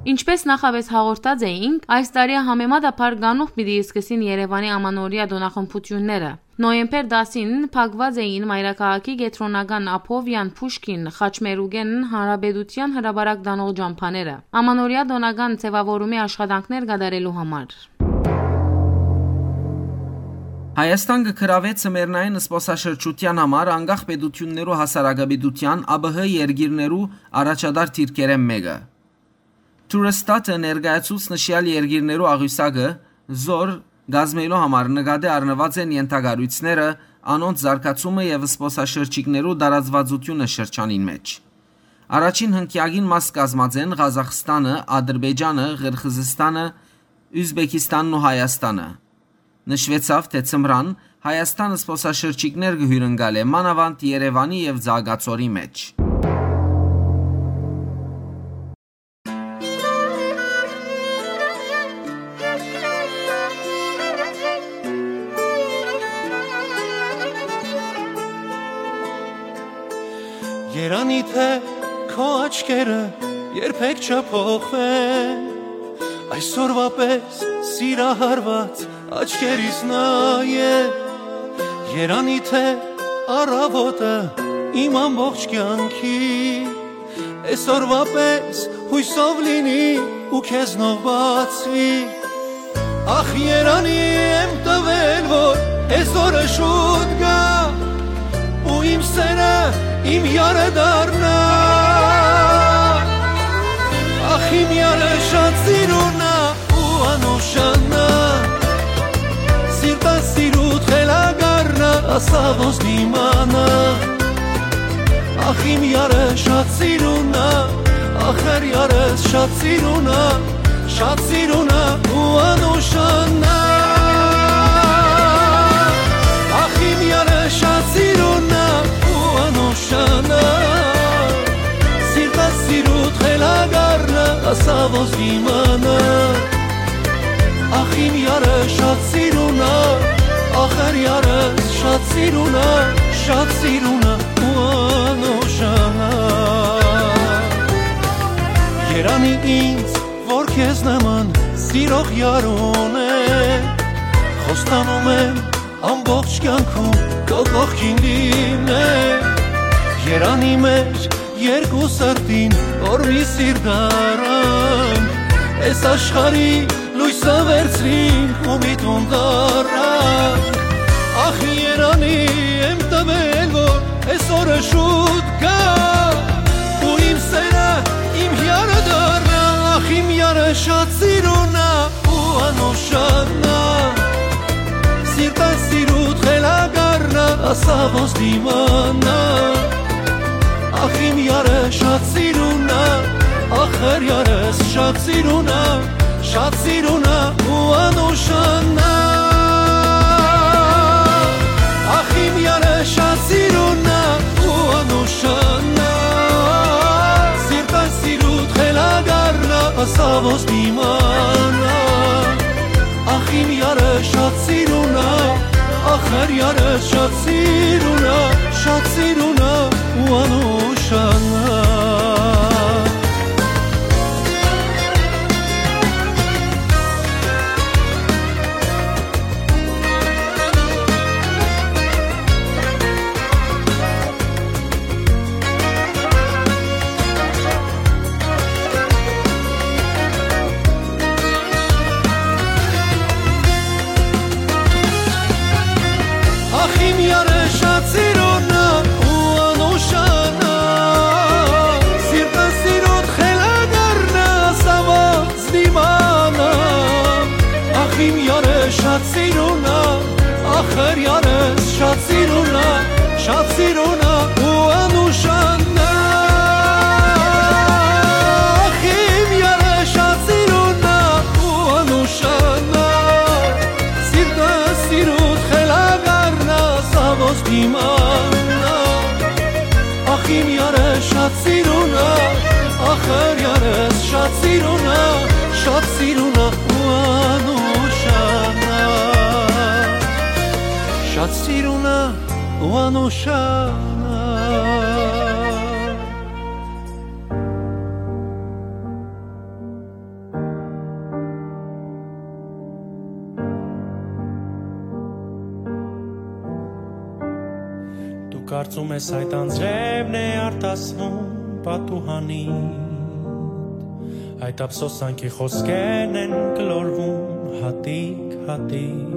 Ինչպէս նախապէս հաղորդած էինք, այս տարի համեմատաբար կանուխ պիտի սկսին Երեւանի ամանորեայ տօնախմբութիւնները։ Նոյեմբեր տասին փակուած էին մայրաքաղաքի կեդրոնական Աբովեան, Փուշկին, Խաչմերուկէն Հանրապետութեան հրապարակ տանող ճամբաները, ամանորեայ տօնական ձեւաւորումի աշխատանքներ կատարելու համար։ Հայաստան կը գրաւէ ձմեռնային զբօսաշրջութեան համար անկախ պետութիւններու հասարակապետութեան, ԱՊՀ երկիրներու առաջատար դիրքերէն մէկը։ Turstadt-ը ներկայացուց նշեալ երկիրներու աղիւսակը, զոր կազմելու համար նկատի առնուած են ենթակառոյցները, անոնց զարգացումը եւ զբօսաշրջիկներու տարածուածութիւնը շրջանին մէջ։ Առաջին հնկեակին մաս կազմած են Ղազախստանը, Ադրբեջանը, Ղիրղիզստանը, Ուզբեկիստանն ու Հայաստանը։ Նշուեցաւ, թէ ձմրան Հայաստան զբօսաշրջիկներ կը հիւրընկալէ, մանաւանդ Երեւանի եւ Ծաղկաձորի մէջ։ Երանի թէ քո աչքերը երբեք չփոխվեն, այսօրվա պես սիրահարված աչքերիս նայե։ Երանի թէ առավոտը իմ ամբողջ կեանքի այսօրվա պես յոյսով լինի ու քեզնով բացվի։ Ախ, երանի եմ տվել, որ այսօրը շուտ գայ ու իմ սերը իմ յարը դառնայ։ Ախ, իմ յարը շատ սիրուն ա ու անուշանա, սիրտը սիրուդ խելագարնա, ասա ոնց դիմանա։ Ախ, իմ յարը շատ սիրուն ա, ախր յարս շատ սիրուն ա, շատ սիրուն ա ու անուշանա։ Ախ, իմ յարը շատ սիրուն ա ու անուշանա, սիրտը սիրուդ խելագարնա, ասա ոնց դիմանա։ Ախ, իմ յարը շատ սիրուն ա, ախր յարս շատ սիրուն ա, շատ սիրուն ա ու անուշանա։ Երանի ինձ, որ քեզ նման սիրող յարուն է, խոստանում եմ ամբողջ կյանքում քո կողքին լինել։ Երանի մեր երկու սրտին, որ մի սիրտ առանք, այս աշխարհի լոյսը վերցրինք ու մի տուն դառնանք։ Ախ, երանի եմ տվել, որ այսօրը շուտ գայ ու իմ սերը իմ յարը դառնայ։ Ախ, իմ յարը շատ սիրուն ա ու անուշանա, սիրտը սիրուդ խելագարնա, ասա ոնց դիմանա։ Ախ, իմ յարը շատ սիրուն ա, ախր յարս շատ սիրուն ա, շատ սիրուն ա ու անուշանա։ Ախ, իմ յարը շատ սիրուն ա ու անուշանա, սիրտը սիրուդ խելագարնա, ասա ոնց դիմանա։ Ախ, իմ յարը շատ սիրուն ա, ախր յարս շատ սիրուն ա, շատ սիրուն ա ու անուշանա։ Ախ, իմ յարը շատ սիրուն ա ու անուշանա, սիրտը սիրուդ խելագարնա, սա ոնց դիմանա։ Ախ, իմ յարը շատ սիրուն ա, ախր յարս շատ սիրուն ա, շատ սիրուն ա ու անուշանա։ Ախ, իմ յարը շատ սիրուն ա ու անուշանա, սիրտ Սիրունա, ախր յարս շատ սիրունա, շատ սիրունա ու անուշանա, շատ սիրունա ու անուշանա։ Դու կարծում ես այդ անձրևն է արտասնում պատուհանիդ, այդ ափսոսանքի խոսքերն են գլորվում հատիկ-հատիկ,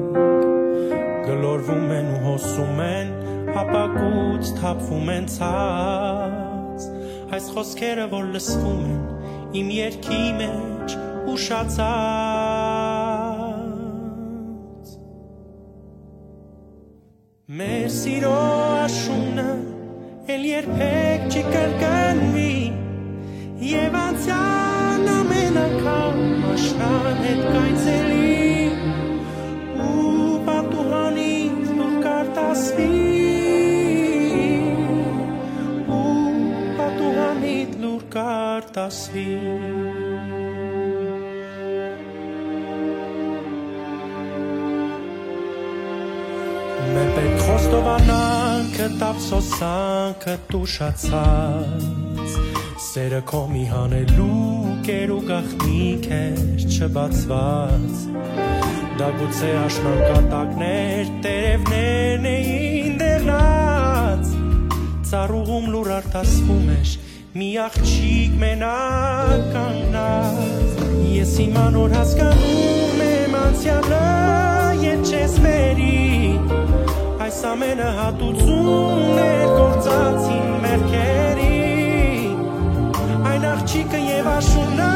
գլորվում են ու հոսում են, ապակուց թափվում են ցած, այս խոսքերը որ լսվում են իմ երգի մեջ ուշացած։ Մեր սիրո աշունը էլ երբեք չի կրկնվի, եւ անցյան ամեն անգամ աշնան հետ կայցելի, ու պատուհանից լուր կարտասվի, ու պատուհանից լուր կարտասվի։ Մէ պէտք խոստովանանքը, տապսոսանքը տուշացած, սերը քո մի հանելուկ էր ու գաղտնիք էր չբացված, դա գուցե աշնան կատակներ տերևներն էին դեղնած, ծառուղում լուր արտասվում էր, մի աղջիկ մենակ կանգնած, ես իմ անոր հասկանում եմ անցյալը, երբ չես մերի, այս ամենը հատուցում էր գործած իմ մեղքերի, այն աղջիկը եւ աշունը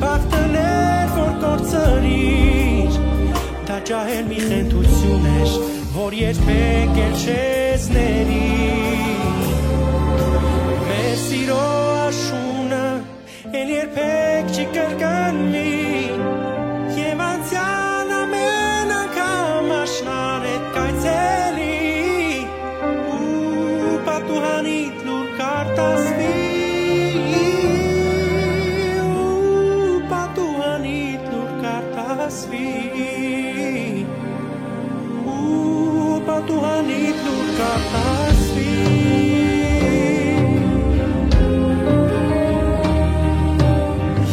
բախտն էր, որ կորցրիր, դա ջահել մի խենթություն էր, որ երբեք էլ չես ների։ Մեր սիրո աշունը էլ երբեք չի կրկնվի, եւ անցյալ ամեն անգամ աշնան հետ կայցելի, ու պատուհանիդ լուր կարտասվի, ու պատուհանիդ լուր կարտասվի, ու պատուհանիդ լուր կարտասվի։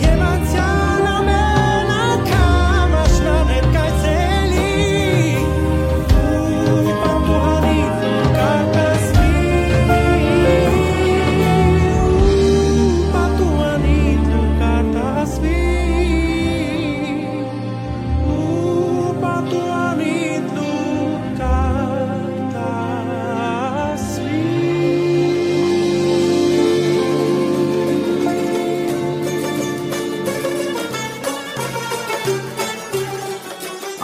Եւ անցյալ ամեն անգամ աշնան հետ կայցելի, ու պատուհանիդ լուր կարտասվի, ու պատուհանիդ լուր կարտասվի։ Ու պատուհանիդ լուր կարտասվի։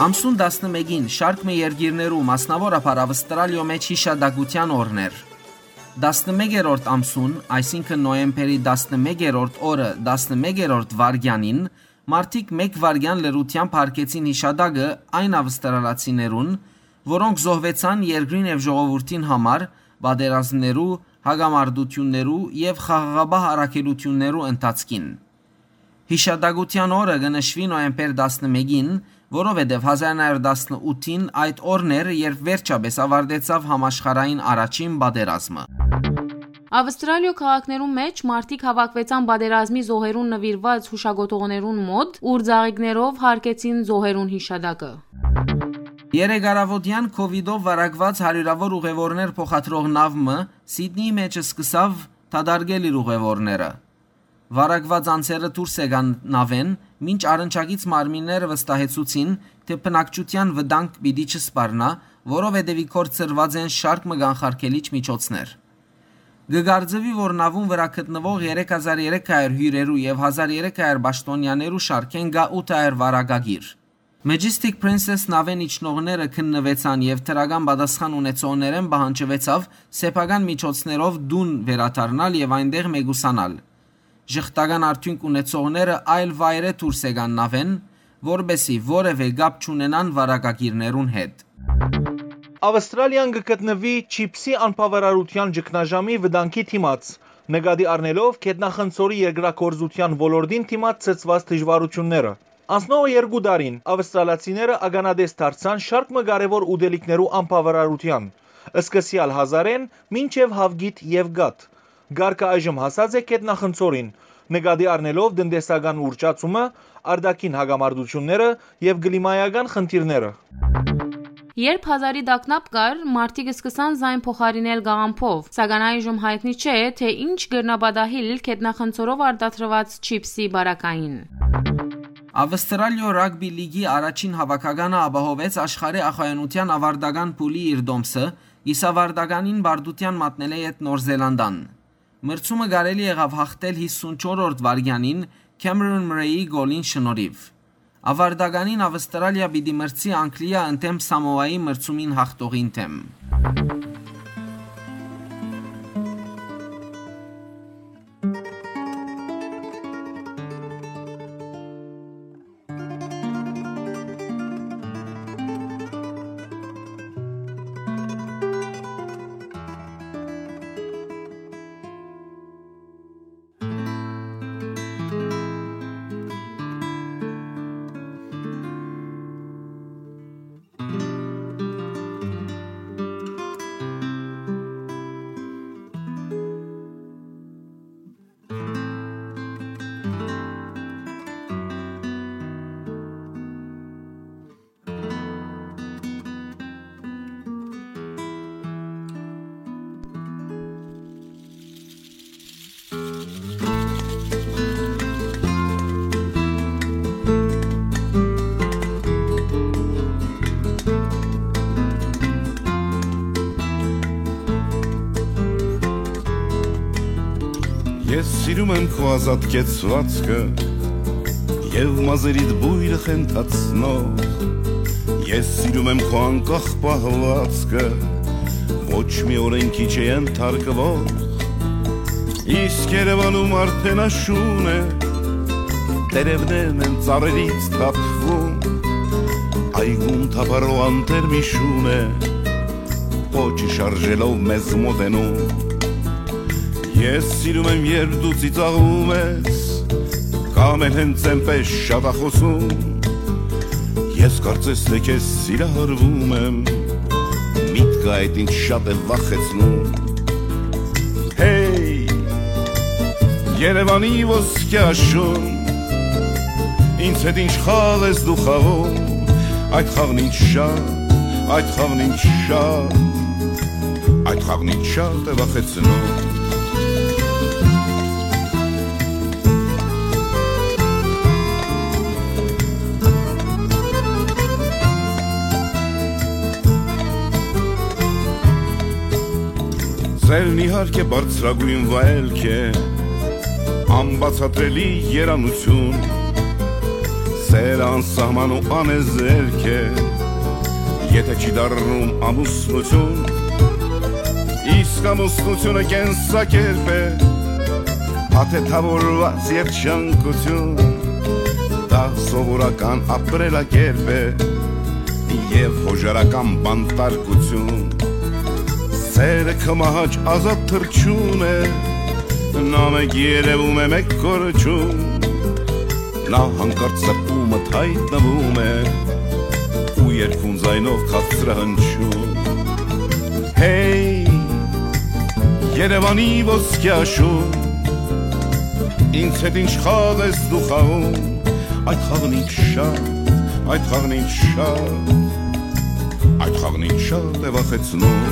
Ամսուն տասնմէկին շարք մը երկիրներու, մասնաւորաբար Ավստրալիոյ մէջ յիշատակութեան օրն էր։ Տասնմեկերորդ ամսուն, այսինքն՝ նոյեմբերի տասնմեկերորդ օրը, տասնմեկերորդ վայրկեանին, մարդիկ մէկ վայրկեան լռութեամբ յարգեցին յիշատակը այն ավստրալացիներուն, որոնք զոհուեցան երկրին եւ ժողովուրդին համար պատերազմներու, հակամարտութիւններու եւ խաղաղապահ առաքելութիւններու ընթացքին։ Յիշատակութեան օրը կը նշուի նոյեմբեր տասնմէկին, որովհետեւ հազար նոյ հարիւր տասնութին այդ օրն էր, երբ վերջապէս աւարտեցաւ համաշխարհային առաջին պատերազմը։ Ավստրալիոյ քաղաքներուն մէջ մարդիկ հաւաքուեցան պատերազմի զոհերուն նուիրուած յուշակոթողներուն մօտ, ուր ծաղիկներով յարգեցին զոհերուն յիշատակը։ Երեկ առաւօտեան քովիդով վարակուած հարիւրաւոր ուղեւորներ փոխադրող նաւ մը Սիդնիի մէջ սկսաւ դատարկել իր ուղեւորները։ Վարակուած անձերը դուրս եկան նաւէն, մինչ առնչակից մարմինները վստահեցուցին, թէ բնակչութեան վտանգ պիտի չսպառնայ, որովհետեւ ի գործ դրուած են շարք մը կանխարգելիչ միջոցներ։ Կը կարծուի, որ նաւուն վրայ գտնուող երեք հազար երեք հարիւր հիւրերու եւ հազար երեք հարիւր պաշտօնեաներու շարքէն կայ ութ հարիւր վարակագիր։ Majestic Princess նաւէն իջնողները քննուեցան եւ դրական պատասխան ունեցողներէն պահանջուեցաւ սեփական միջոցներով տուն վերադառնալ եւ այնտեղ մեկուսանալ։ Ժխտական արդիւնք ունեցողները այլ վայրէ դուրս եկան նաւէն, որպէսզի որեւէ կապ չունենան վարակագիրներուն հետ։ Ավստրալիան կը գտնուի չիպսի անբաւարարութեան ճգնաժամի վտանգի դիմաց։ Նկատի առնելով գետնախնձորի երկրագործութեան ոլորտին դիմաց ցցուած դժուարութիւնները, անցնողը երկու տարին ավստրալացիները ականատես դարձան շարք մը կարեւոր ուտելիքներու անբաւարարութեան, սկսեալ հազարէն մինչեւ հաւկիթ եւ կաթ։ Կարգը այժմ հասած է գետնախնձորին, նկատի առնելով տնտեսական ուռճացումը, արտաքին հակամարտութիւնները եւ կլիմայական խնդիրները։ Երբ հազարի տագնապ կար, մարդիկ սկսան զայն փոխարինել կաղամբով, սակայն այժմ յայտնի չէ, թե ինչ կրնայ պատահիլ գետնախնձորով արտադրուած չիփսի պարագային։ Ավստրալիոյ ռագբի լիգի առաջին հաւաքականը ապահովեց աշխարհի ախոյանութեան ավարտական փուլի իր տոմսը, իսկ ավարտականին պարտութեան մատնելէ յետ Նոր Զելանդան։ Մրցումը կարելի եղաւ յաղթել հիսունչորրորդ վայրկեանին Քեմերոն Մրեյի գոլին շնորհիւ։ Ավարտականին Ավստրալիա պիտի մրցի Անգլիա ընդդէմ Սամոայի մրցումին յաղթողին դէմ։ Ես սիրում եմ քո ազատ կեցուածքը և մազերիդ բույրը խենթացնող։ Ես սիրում եմ քո անկախ պահվածքը, ոչ մի օրենքի չէ ենթարկվող։ Իսկ Երևանում արդեն աշուն է, տերևներն են ծառերից թափվում, այգում թափառող անտեր մի շուն է, պոչը շարժելով մեզ մոտենում։ Ես սիրում եմ, երբ դու ծիծաղում ես, կամ էլ հենց այնպես շատախոսում։ Ես կարծես թե քեզ սիրահարվում եմ, միտքը այդ ինչ շատ է վախեցնում։ Հեյ, Երևանի ոսկեաշուն, ինձ հետ ինչ խաղ ես դու խաղում, այդ խաղն ինչ շատ, այդ խաղն ինչ շատ, այդ խաղն ինչ շատ է վախեցնում։ Սերն իհարկե բարձրագույն վայելք է, անբացատրելի երանություն, սերը անսահման ու անեզերք է, եթե չի դառնում ամուսնություն, իսկ ամուսնությունը կենսակերպ է, աթեթավորուած երջանկություն, դա սովորական ապրելակերպ է և հոժարական բանտարկություն։ Սերը քմահաճ ազատ թռչուն է, նա մեկ երևում է, մեկ կորչում, նա հանկարծ սրտումդ հայտնվում է ու երկուն ձայնով քաղցրահնչում։ Հեյ, Երևանի ոսկեաշուն, ինձ հետ ինչ խաղ ես դու խաղում, այդ խաղն ինչ շատ, այդ խաղն ինչ շատ, այդ խաղն ինչ շատ է վախեցնում։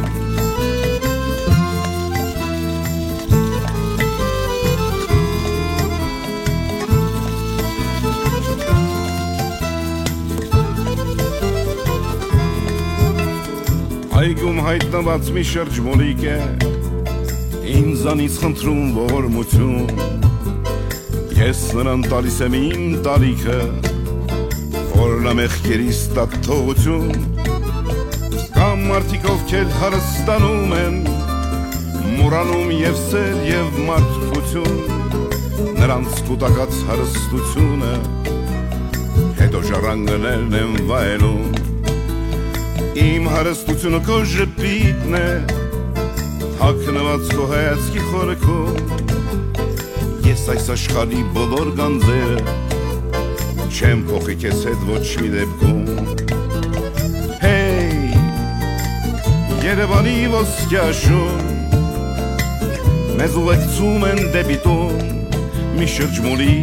Այգում հայտնված մի շրջմոլիկ է, ինձանից խնդրում ողորմություն։ Ես նրան տալիս եմ իմ տարիքը, որ նա մեղքերիս տա թողություն։ Կամ մարդիկ, ովքեր հարստանում են, մոռանում և սեր, և մարդկություն, նրանց կուտակած հարստությունը, հետո ժառանգներն են վայելում։ Իմ հարստությունը քո ժպիտն է, թաքնված քո հայացքի խորքում, Այս աշխարհի բոլոր գանձերը չեմ փոխի քեզ հետ ոչ մի դեպքում։ Հեյ, Երևանի ոսկեաշուն, մեզ ուղեկցում են դեպի տուն, մի շրջմունի,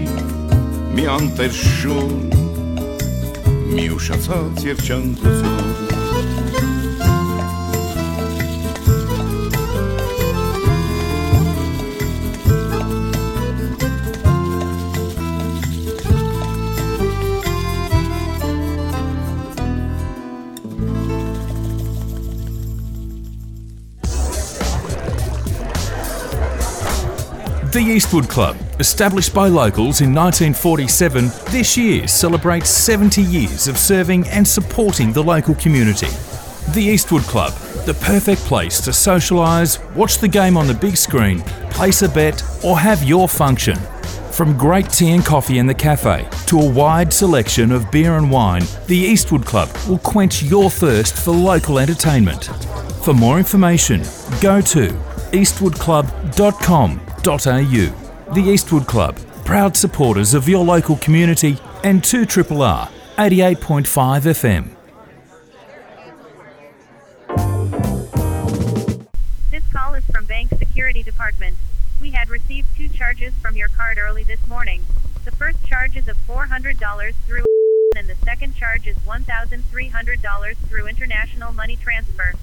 մի անտեր շուն, մի ուշացած երջանկություն։ The Eastwood Club, established by locals in nineteen forty-seven, this year celebrates seventy years of serving and supporting the local community. The Eastwood Club, the perfect place to socialise, watch the game on the big screen, place a bet, or have your function. From great tea and coffee in the cafe to a wide selection of beer and wine, the Eastwood Club will quench your thirst for local entertainment. For more information, go to eastwood club dot com dot a u. The Eastwood Club, proud supporters of your local community and two triple R, eighty-eight point five F M. This call is from Bank Security Department. We had received two charges from your card early this morning. The first charge is of four hundred dollars through and the second charge is one thousand three hundred dollars through international money transfer.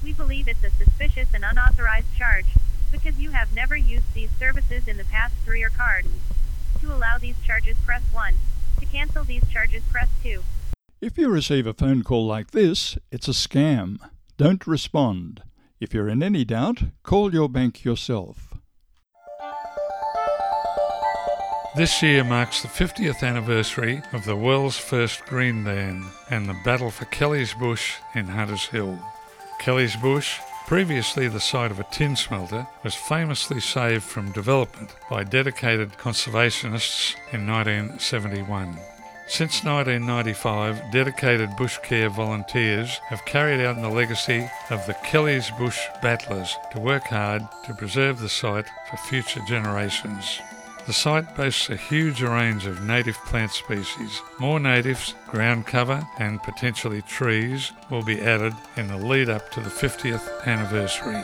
We believe it's a suspicious and unauthorized charge because you have never used these services in the past through your card. To allow these charges, press one. To cancel these charges, press two. If you receive a phone call like this, it's a scam. Don't respond. If you're in any doubt, call your bank yourself. This year marks the fiftieth anniversary of the world's first green dan and the battle for Kelly's Bush in Hunters Hill. Kelly's Bush, previously the site of a tin smelter, was famously saved from development by dedicated conservationists in nineteen seventy-one. Since nineteen ninety-five, dedicated bush care volunteers have carried out the legacy of the Kelly's Bush Battlers to work hard to preserve the site for future generations. The site boasts a huge range of native plant species. More natives, ground cover, and potentially trees will be added in the lead up to the fiftieth anniversary.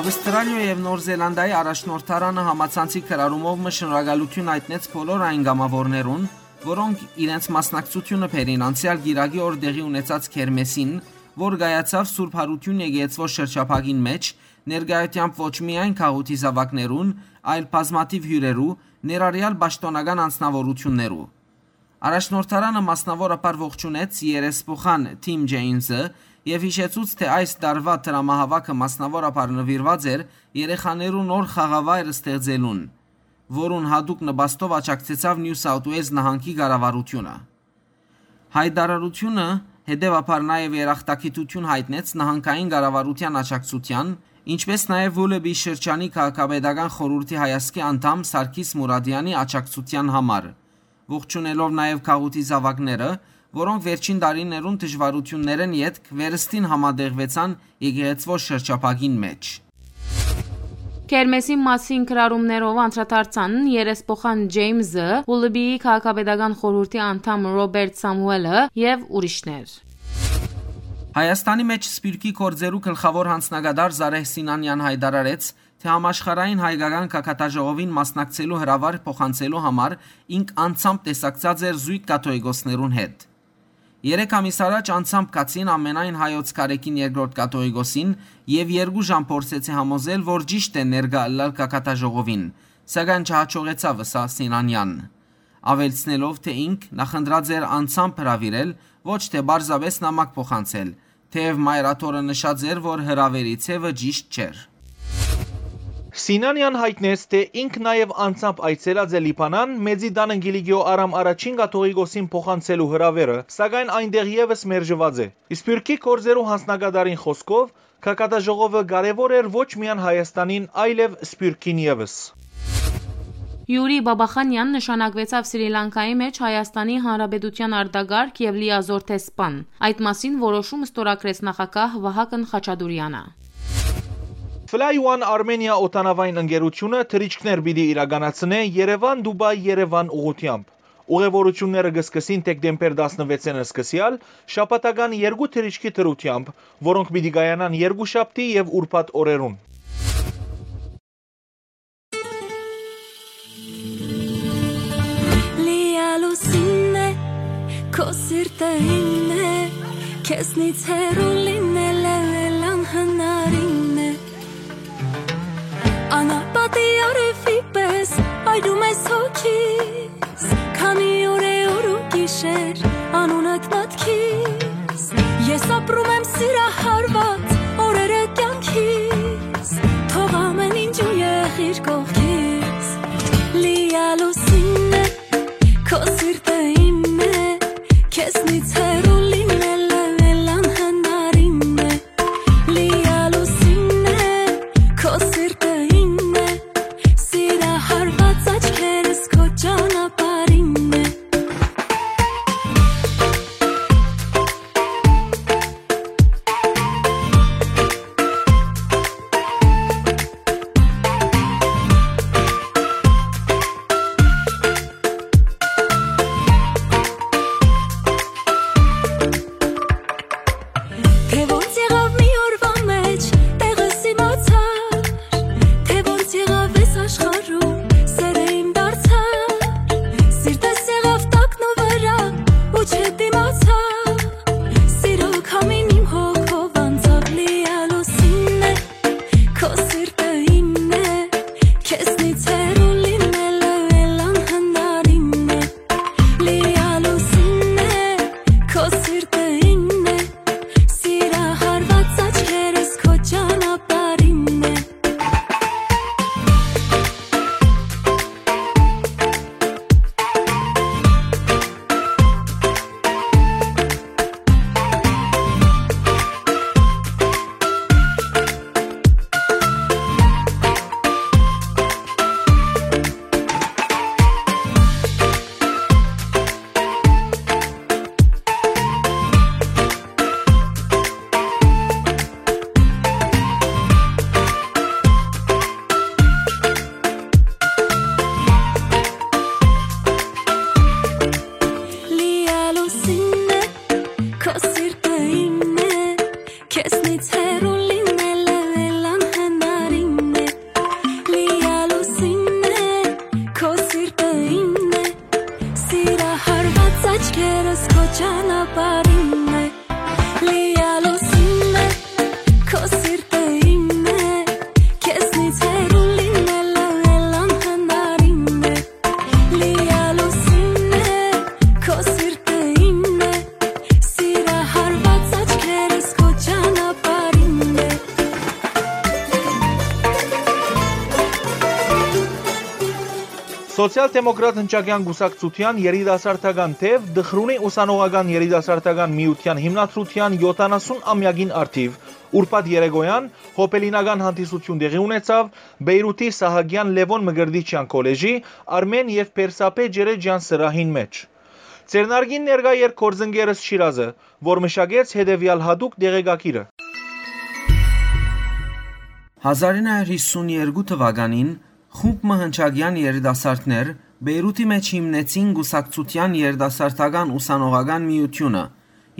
Ավստրալիոյ եւ Նոր Զելանդիայի առաջնորդարանը համացանցի կրառումով մը շնորհակալութիւն յայտնեց բոլոր այն կամաւորներուն, որոնք իրենց մասնակցությունը բերին անցեալ կիրակի օր տեղի ունեցած քերմեսին, որ կայացաւ Սուրբ Յարութիւն եկեղեցւոյ շրջափակին մէջ, ներկայութեամբ ոչ միայն գաղութի զաւակներուն, այլ բազմաթիւ հիւրերու, ներառեալ պաշտօնական անձնաւորութիւններու։ Առաջնորդարանը մասնաւորաբար ողջունեց երեսփոխան Թիմ Ջեյնզը եւ յիշեցուց, թէ այս տարուայ դրամահաւաքը մասնաւորաբար նուիրուած էր երեխաներու նոր խաղավայր ստեղծելուն, որուն յատուկ նպաստով աջակցեցաւ Նիու Սաութ Ուելզ նահանգի կառավարութիւնը։ Յայտարարութիւնը հետեւաբար նաեւ երախտագիտութիւն յայտնեց նահանգային կառավարութեան աջակցութեան, ինչպէս նաեւ Ուլլուբի շրջանի քաղաքապետական խորհուրդի հայազգի անդամ Սարգիս Մուրադեանի աջակցութեան համար, ողջունելով նաեւ գաղութի զաւակները, որոնք վերջին տարիներուն դժուարութիւններէն ետք վերստին համատեղուեցան եկեղեցւոյ շրջափակին մէջ։ Քերմեսին մասին կրառումներով անդրադարձան երեսփոխան Ջեյմզը, Ուլլուբիի քաղաքապետական խորհուրդի անդամ Ռոբերտ Սամուելը եւ ուրիշներ։ Հայաստանի մէջ սփիւռքի գործերու գլխաւոր յանձնակատար Զարեհ Սինանեան յայտարարեց, թէ համաշխարհային հայկական գագաթաժողովին մասնակցելու հրաւար փոխանցելու համար ինք անձամբ տեսակցած էր զոյգ կաթողիկոսներուն հետ։ Երեք ամիս առաջ անձամբ գացին ամենայն հայոց կարեկին երկրորդ կաթողիկոսին եւ երկու ժամ փորձեցի համոզել, որ ճիշդ է ներկայ ըլլալ գագաթաժողովին, սակայն չհաջողեցաւ, ըսաւ Սինանեան, աւելցնելով, թէ ինք նախընտրած էր անձամբ հրաւիրել, ոչ թէ պարզապէս նամակ փոխանցել, թէեւ Մայր Աթոռը նշած էր, որ հրաւերի ձեւը ճիշտ չէր։ Սինանեան յայտնեց, թէ ինք նաեւ անձամբ այցելած է Լիբանան, Մեծի տանը Կիլիկիոյ Արամ առաջին կաթողիկոսին փոխանցելու հրաւերը, սակայն այնտեղ եւս մերժուած է։ Սփիւռքի գործերու յանձնակատարին խօսքով, գագաթաժողովը կարեւոր էր ոչ միայն Հայաստանին, այլեւ սփիւռքին եւս։ Յուրի Բաբախանեան նշանակուեցաւ Սրի Լանկայի մէջ Հայաստանի Հանրապետութեան արտակարգ եւ լիազոր դեսպան։ Այդ մասին որոշում ստորագրեց նախագահ Վահագն Խաչատուրեանը։ Fly One Armenia օդանաւային ընկերութիւնը թռիչքներ պիտի իրականացնէ Երեւան-Դուբայ-Երեւան ուղղութեամբ։ Ուղևորութիւնները կը սկսին դեկտեմբեր տասնվեցին սկսեալ, շաբաթական երկու թռիչքի դրութեամբ, որոնք պիտի կայանան երկուշաբթի եւ ուրբաթ օրերուն։ Լիալուսինն է, քո սիրտը իմն է, քեզնից հեռու լինելը էլ անհնարին է։ Անապատի արեւի պես այրում ես հոգիս, քանի օր է օր ու գիշեր անունդ մտքիս։ Ես ապրում եմ սիրահարված օրերը կյանքիս, թող ամեն ինչ ու եղիր կողքիս։ Լիալուսինն է, քո սիրտը իմն է, քեզնից հեռու լինելը էլ անհնարին է։ Լիալուսինն է, քո սիրտը իմն է, սիրահարված աչքերս քո ճանապարհ Սիրահարված աչքերս քո ճանապարհին է, լիալուսին է, քո սիրտը իմն է, քեզնից հեռու լինելը էլ անհնարին է, լիալուսին է, քո սիրտը իմն է, սիրահարված աչքերս քո ճանապարհին է։ Սոցիալ-դեմոկրատ հնչակեան կուսակցութեան երիտասարդական թեւ Դխրունի ուսանողական երիտասարդական միութեան հիմնադրութեան յոթանասուն ամեակին առթիւ ուրբաթ երեկոյան հոբելինական հանդիսություն տեղի ունեցաւ Բեյրութի Սահակեան Լեւոն Մկրտիչեան քոլեժի Արմէն եւ Պերսապե Ջերեջեան սրահին մէջ։ Ձեռնարկին ներկայ էր գործընկերս Շիրազը, որ մշակեց հետեւեալ յատուկ տեղեկագիրը։ Հազար ինը հարյուր հիսուն երկու թուականին խումբ մը հնչակեան երիտասարդներ Բեյրութի մէջ հիմնեցին կուսակցութեան երիտասարդական ուսանողական միութիւնը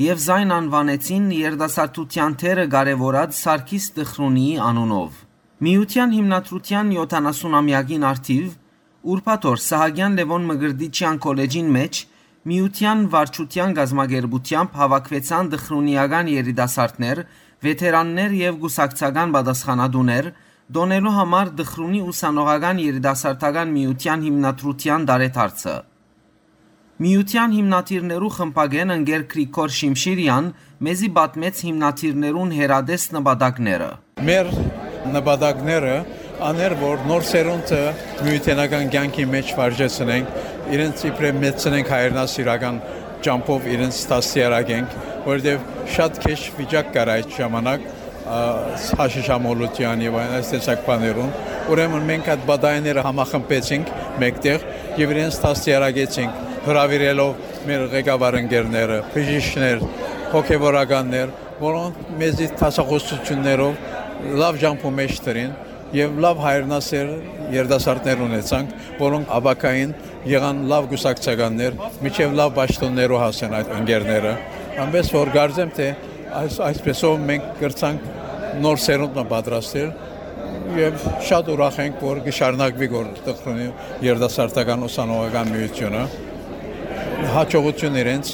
եւ զայն անուանեցին երիտասարդութեան դերը կարեւորած Սարգիս Դխրունիի անունով։ Միութեան հիմնադրութեան յոթանասուն ամեակին առթիւ ուրբաթ օր Սահակեան Լեւոն Մկրտիչեան քոլեջին մէջ միութեան վարչութեան կազմակերպութեամբ հաւաքուեցան դխրունիական երիտասարդներ, վեթերաններ եւ կուսակցական պատասխանատուներ, տօնելու համար Դխրունի ուսանողական երիտասարդական միութեան հիմնադրութեան տարեդարձը։ Միութեան հիմնադիրներու խմբակէն ընկեր Գրիգոր Շիմշիրեան մեզի պատմեց հիմնադիրներուն հեռատես նպատակները։ Մեր նպատակները աներ, որ նոր սերունդը միութենական կյանքի մէջ վարժեցնենք, իրենց իբրեւ մեծցնենք, հայրենասիրական ճամբով իրենց դաստիարակենք, որովհետեւ շատ քեշ վիճակ կար այդ ժամանակ, ա, հաշիշամոլութեան եւ այն այս տեսակ բաներուն։ Ուրեմն մենք այդ պատայները համախմբեցինք մէկտեղ եւ իրենց դաստիարակեցինք, հրաւիրելով մեր ղեկավար ընկերները, բժիշկներ, հոգեվորականներ, որոնք մեզի դասախոսություններով լաւ ճամբու մէջ դրին եւ լաւ հայրենասեր երիտասարդներ ունեցանք, որոնք ապագային եղան լաւ կուսակցականներ, մինչեւ լաւ պաշտօններու հասան այդ ընկերները։ Այնպես որ կարծեմ, թէ այս, այսպեսով մենք կրցանք նոր սերունդ մը պատրաստել եւ շատ ուրախ ենք, որ կշարունակվի գործ Դխրունի երիտասարդական ուսանողական միութիւնը։ Հաջողություն իրենց։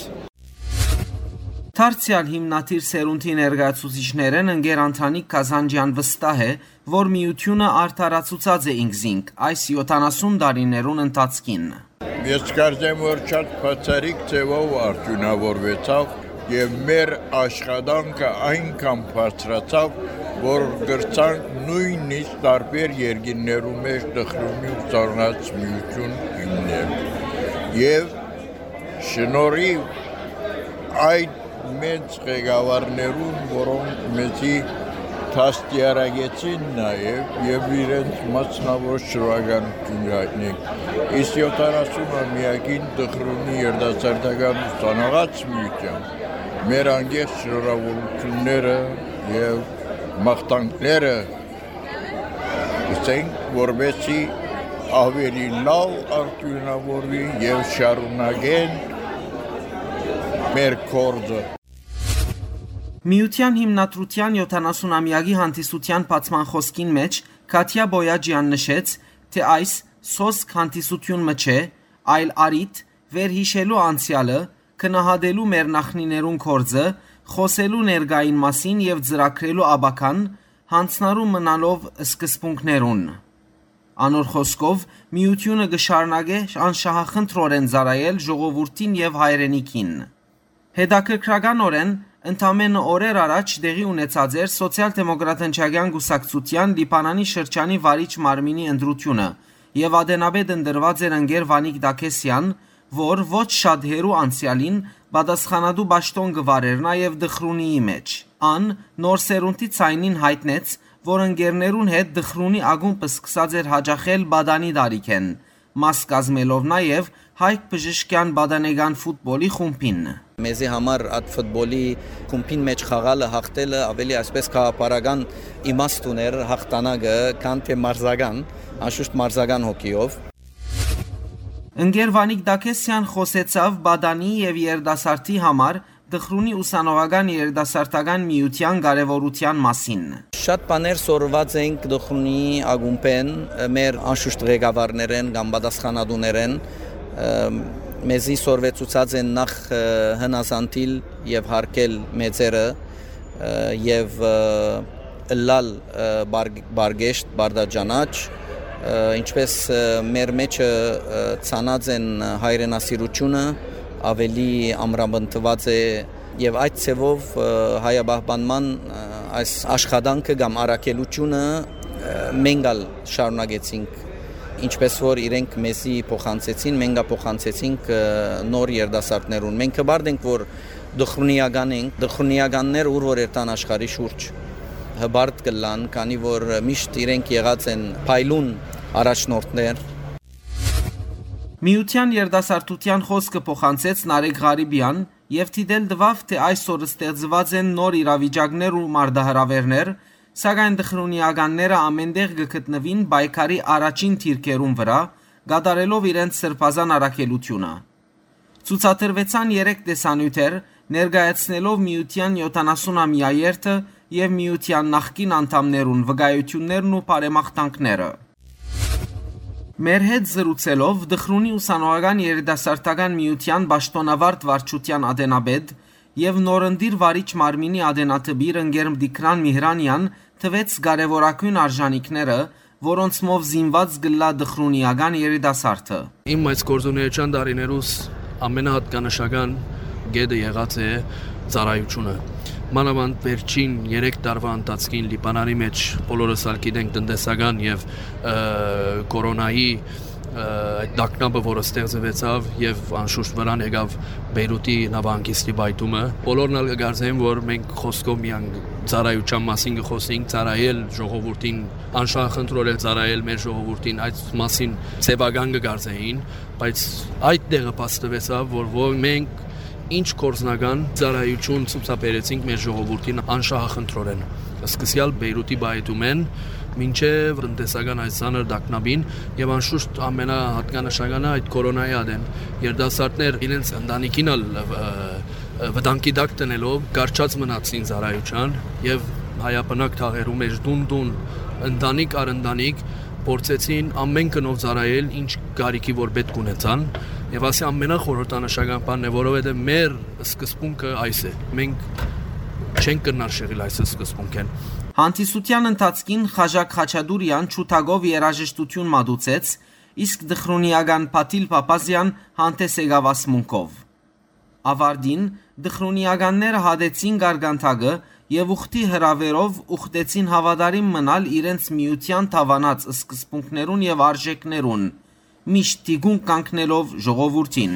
Դարձեալ հիմնադիր սերունդի ներկայացուցիչներէն ընկեր Անդրանիկ Կազանջեան վստահ է, որ միութիւնը արդարացուցած է ինքզինք այս յոթանասուն տարիներուն ընթացքին։ Ես կարծեմ, որ շատ բացառիկ ձևով արդիւնաւորուեցաւ եւ մեր աշխատանքը այնքան բարձրացաւ, որ կրցանք նոյնիսկ տարբեր երկիրներու մէջ Դխրունի ուսանողաց միութիւն հիմնել։ Եւ շնորհիւ այդ մեծ ղեկավարներուն, որոնք մեզի դաստիարակեցին նաեւ եւ իրենց մասնաւոր շնորհակալություն կ'այտնենք։ Իսկ յոթանասուն ամեակին Դխրունի երիտասարդական ուսանողաց միութեան մեր անկեղծ շնորհավորությունները եւ մաղթանքները կ'ըսենք, որպեսզի աւելի լաւ արդիւնաւորուի եւ շարունակեն մեր գործը։ Միութեան հիմնադրութեան յոթանասուն ամեակի հանդիսութեան բացման խօսքին մէջ Քաթիա Բոյաջեան նշեց, թէ այս սոսկ հանդիսություն մը չէ, այլ առիթ, վերհիշելու անցեալը, գնահատելու մեր նախնիներուն գործը, խոսելու ներկային մասին եւ ծրագրելու ապագան, յանձնառու մնալով սկզբունքներուն։ Անոր խօսքով, միութիւնը կը շարունակէ անշահախնդրօրէն ծառայել ժողովուրդին եւ հայրենիքին։ Հետաքրքրականօրէն, ընդամենը օրեր առաջ տեղի ունեցած էր Սոցիալ-դեմոկրատ հնչակեան կուսակցութեան Լիբանանի շրջանի վարիչ մարմինի ընտրութիւնը եւ ատենապետ ընտրուած էր ընկեր Վանիկ Տաքեսեան, որ ոչ շատ հեռու անցեալին պատասխանատու պաշտօն կը վարէր նաեւ Դխրունիի մէջ։ Ան նոր սերունդի ձայնին յայտնեց, որ ընկերներուն հետ Դխրունի ակումբը սկսած էր յաճախել պատանի տարիքէն, մաս կազմելով նաեւ Հայք բժշկեան պատանեկան ֆուտբոլի խումբին։ Մեզի համար այդ ֆուտբոլի խումբին մէջ խաղալը, յաղթելը աւելի, այսպես, գաղափարական իմաստ ունէր յաղթանակը, քան թէ մարզական, անշուշտ մարզական հոգիով։ Ընկեր Վանիկ Տաքեսեան խօսեցաւ պատանի եւ երիտասարդի համար Դխրունի ուսանողական երիտասարդական միութեան կարեւորութեան մասին։ Շատ բաներ սորված ենք Դխրունի ակումբէն, մեր անշուշտ ղեկավարներէն կամ պատասխանատուներէն, ըմ, Մեզի սորվեցուցած են նախ, ը, հնազանդիլ եւ յարգել մեծերը, ը, եւ, ը, ըլլալ, ը, բար-, բարգեշտ, բարդաճանաչ, ը, ինչպէս, ը, մեր մեջը, ը, ցանած են հայրենասիրութիւնը, աւելի ամրապնդուած է, եւ այդ ձեւով, ը, հայապահպանման, ը, այս աշխատանքը կամ առաքելութիւնը, ը, մենք ալ շարունակեցինք, ինչպէս որ իրենք մեզի փոխանցեցին, մենք ալ փոխանցեցինք, ը, նոր երիտասարդներուն։ Մենք հպարտ ենք, որ Դխրունիական ենք, դխրունիականներ ուր որ երթան աշխարհի շուրջ, հպարտ կ'ըլլան, քանի որ միշտ իրենք եղած են փայլուն առաջնորդներ։ Միութեան երիտասարդութեան խօսքը փոխանցեց Նարեկ Ղարիբեան եւ դիտել տուաւ, թէ այսօր ստեղծուած են նոր իրավիճակներ ու մարտահրաւէրներ, սակայն դխրունիականները ամէնտեղ կը գտնուին պայքարի առաջին դիրքերուն վրայ, կատարելով իրենց սրբազան առաքելութիւնը։ Ցուցադրուեցան երեք տեսանիւթեր, ներկայացնելով միութեան յոթանասուն ամեայերթը եւ միութեան նախկին անդամներուն վկայութիւններն ու բարեմաղթանքները։ Մեր հետ զրուցելով Դխրունի ուսանողական երիտասարդական միութեան պաշտօնավարտ վարչութեան ատենապետ եւ նորընտիր վարիչ մարմինի ատենատպիր ընկեր Տիգրան Միհրանեան տուեց կարեւորագոյն արժանիքները, որոնցմով զինուած կ'ըլլայ դխրունիական երիտասարդը։ Իմ այս գործունեության տարիներուս ամենահատկանշական կետը եղած է ծառայութիւնը։ Մանաւանդ վերջին երեք տարուայ ընթացքին Լիբանանի մէջ բոլորս ալ գիտենք տնտեսական եւ, ը, կորոնայի, ը, այդ տագնապը, որը ստեղծուեցաւ եւ անշուշտ վրան եկաւ Բեյրութի նավահանգիստի պայթումը։ Բոլորն ալ կկարծեն, որ մենք խօսքով միայն ծառայութեան մասին կը խօսենք, ծառայել ժողովուրդին, անշահախնդրորեն ծառայել մեր ժողովուրդին, այդ մասին ձեւական կը կարծեին, բայց այդ տեղը փաստուեցաւ, որ ո-, մենք ինչ գործնական ծառայութիւն ցուցաբերեցինք մեր ժողովուրդին անշահախնդրորեն, սկսեալ Բեյրութի պայթումէն մինչեւ տնտեսական այս ծանր տագնապին, եւ անշուշտ ամենահատկանշականը այդ կորոնայի ատեն երիտասարդներ իրենց ընտանիքին ալ, ը, ը, վտանգի տակ դնելով կառչած մնացին ծառայութեան եւ հայաբնակ թաղերու մէջ տուն-տուն, ընտանիք առ ընտանիք փորձեցին ամէն գնով ծառայել, ինչ կարիքի որ պէտք ունեցան, եւ ասի ամենախորհրդանշական բանն է, որովհետեւ մեր սկզբունքը այս է։ Մենք չենք կրնար շեղիլ այս սկզբունքէն։ Հանդիսութեան ընթացքին Խաժակ Խաչատուրեան ջութակով երաժշտութիւն մատուցեց, իսկ դխրունիական Փաթիլ Փափազեան հանդես եկաւ ասմունքով։ Աւարտին դխրունիականները հատեցին գարգանթակը եւ ուխտի հրաւերով ուխտեցին հաւատարիմ մնալ իրենց միութեան դաւանած սկզբունքներուն եւ արժէքներուն, միշտ թիկունք կանգնելով ժողովուրդին։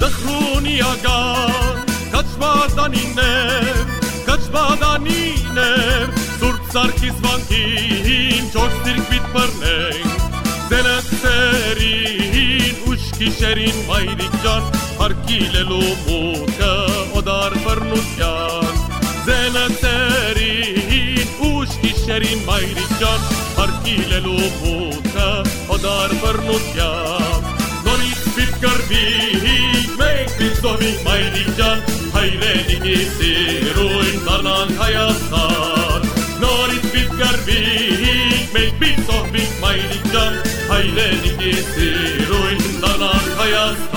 Դխրունիական քաչմատանիներ, քաչմատանիներ, Սուրբ Սարգիս վանքին չորս դիրք պիտ բռնենք, զենացերին ուշ գիշերին մայրիկ ջան, հարկիլելու մուտքը օտար բռնության։ Զենացերին ուշ գիշերին մայրիկ ջան, հարկիլելու մուտքը օտար բռնության։ Նորից պիտ կռվինք, մենք պիտ զոհվինք մայրիկ ջան, հայրենիքի սիրուն դառնանք Հայաստան։ Նորից պիտ կռվինք, մենք պիտ զոհվինք մայրիկ ջան, հայրենիքի սիրուն դառնանք Հայաստան։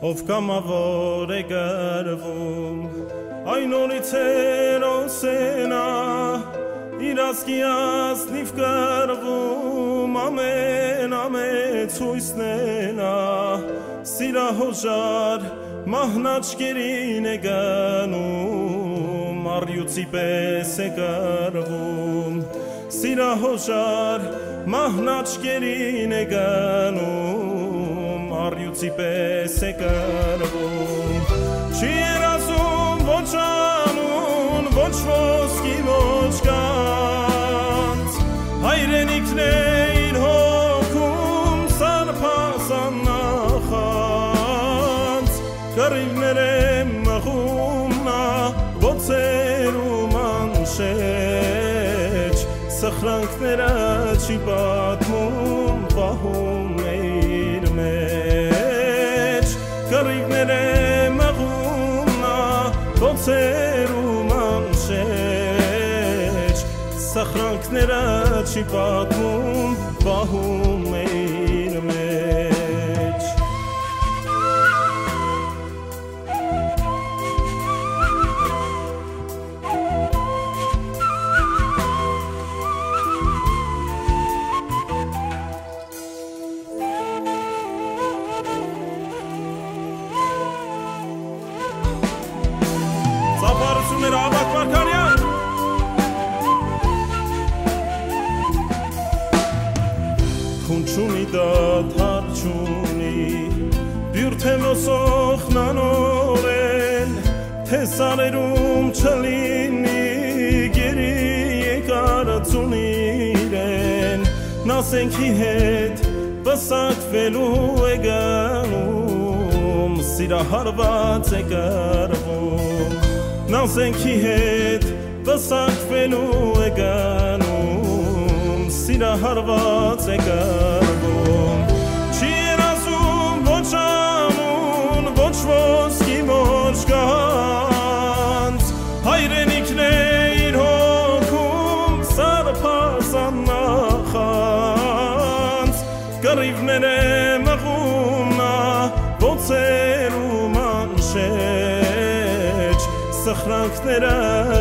Ով կամաւոր է կռվում, այն նորից հերոս է նա, իր ազգի ազնիվ կռվում, ամեն, ամեն ցույցն է նա, սիրահոժար մահն աչքերին է գնում, առյուծի պես է կռվում։ Սիրահոժար մահն աչքերին է գնում, առյուծի պես է կռվում։ Չի երազում ոչ անուն, ոչ ոսկի, ոչ գանձ, հայրենիքն է իր հոգում, սարբազան նախանձ, կռիվներ է մղում նա Շեջ, սխրանքները չի պատմում, պահում է իր մեջ, կռիվները մղում նա, բոցերու մանշեջ, սխրանքները չի պատմում, պահում է իր մեջ։ Ծափարությունները, Աբակ Մարգարեան։ Քուն չունի, դադար չունի, բիւր թէ մոսոխնանորեն, թէ սարերում չլինի, գերի եկարածուն իրեն, նասենքի հետ պսակվելու է գնում, սիրահարված է կռվում, նասենքի հետ պսակվելու է գնում, սիրահարված է կռվում։ Չի երազում ոչ ամուն, ոչ ոսկի, ոչ գանձ, հայրենիքն է իր հոգում սարսափազան նախանձ, կռիվներ է մղում նա, բոցերու մանշեջ, սխրանքները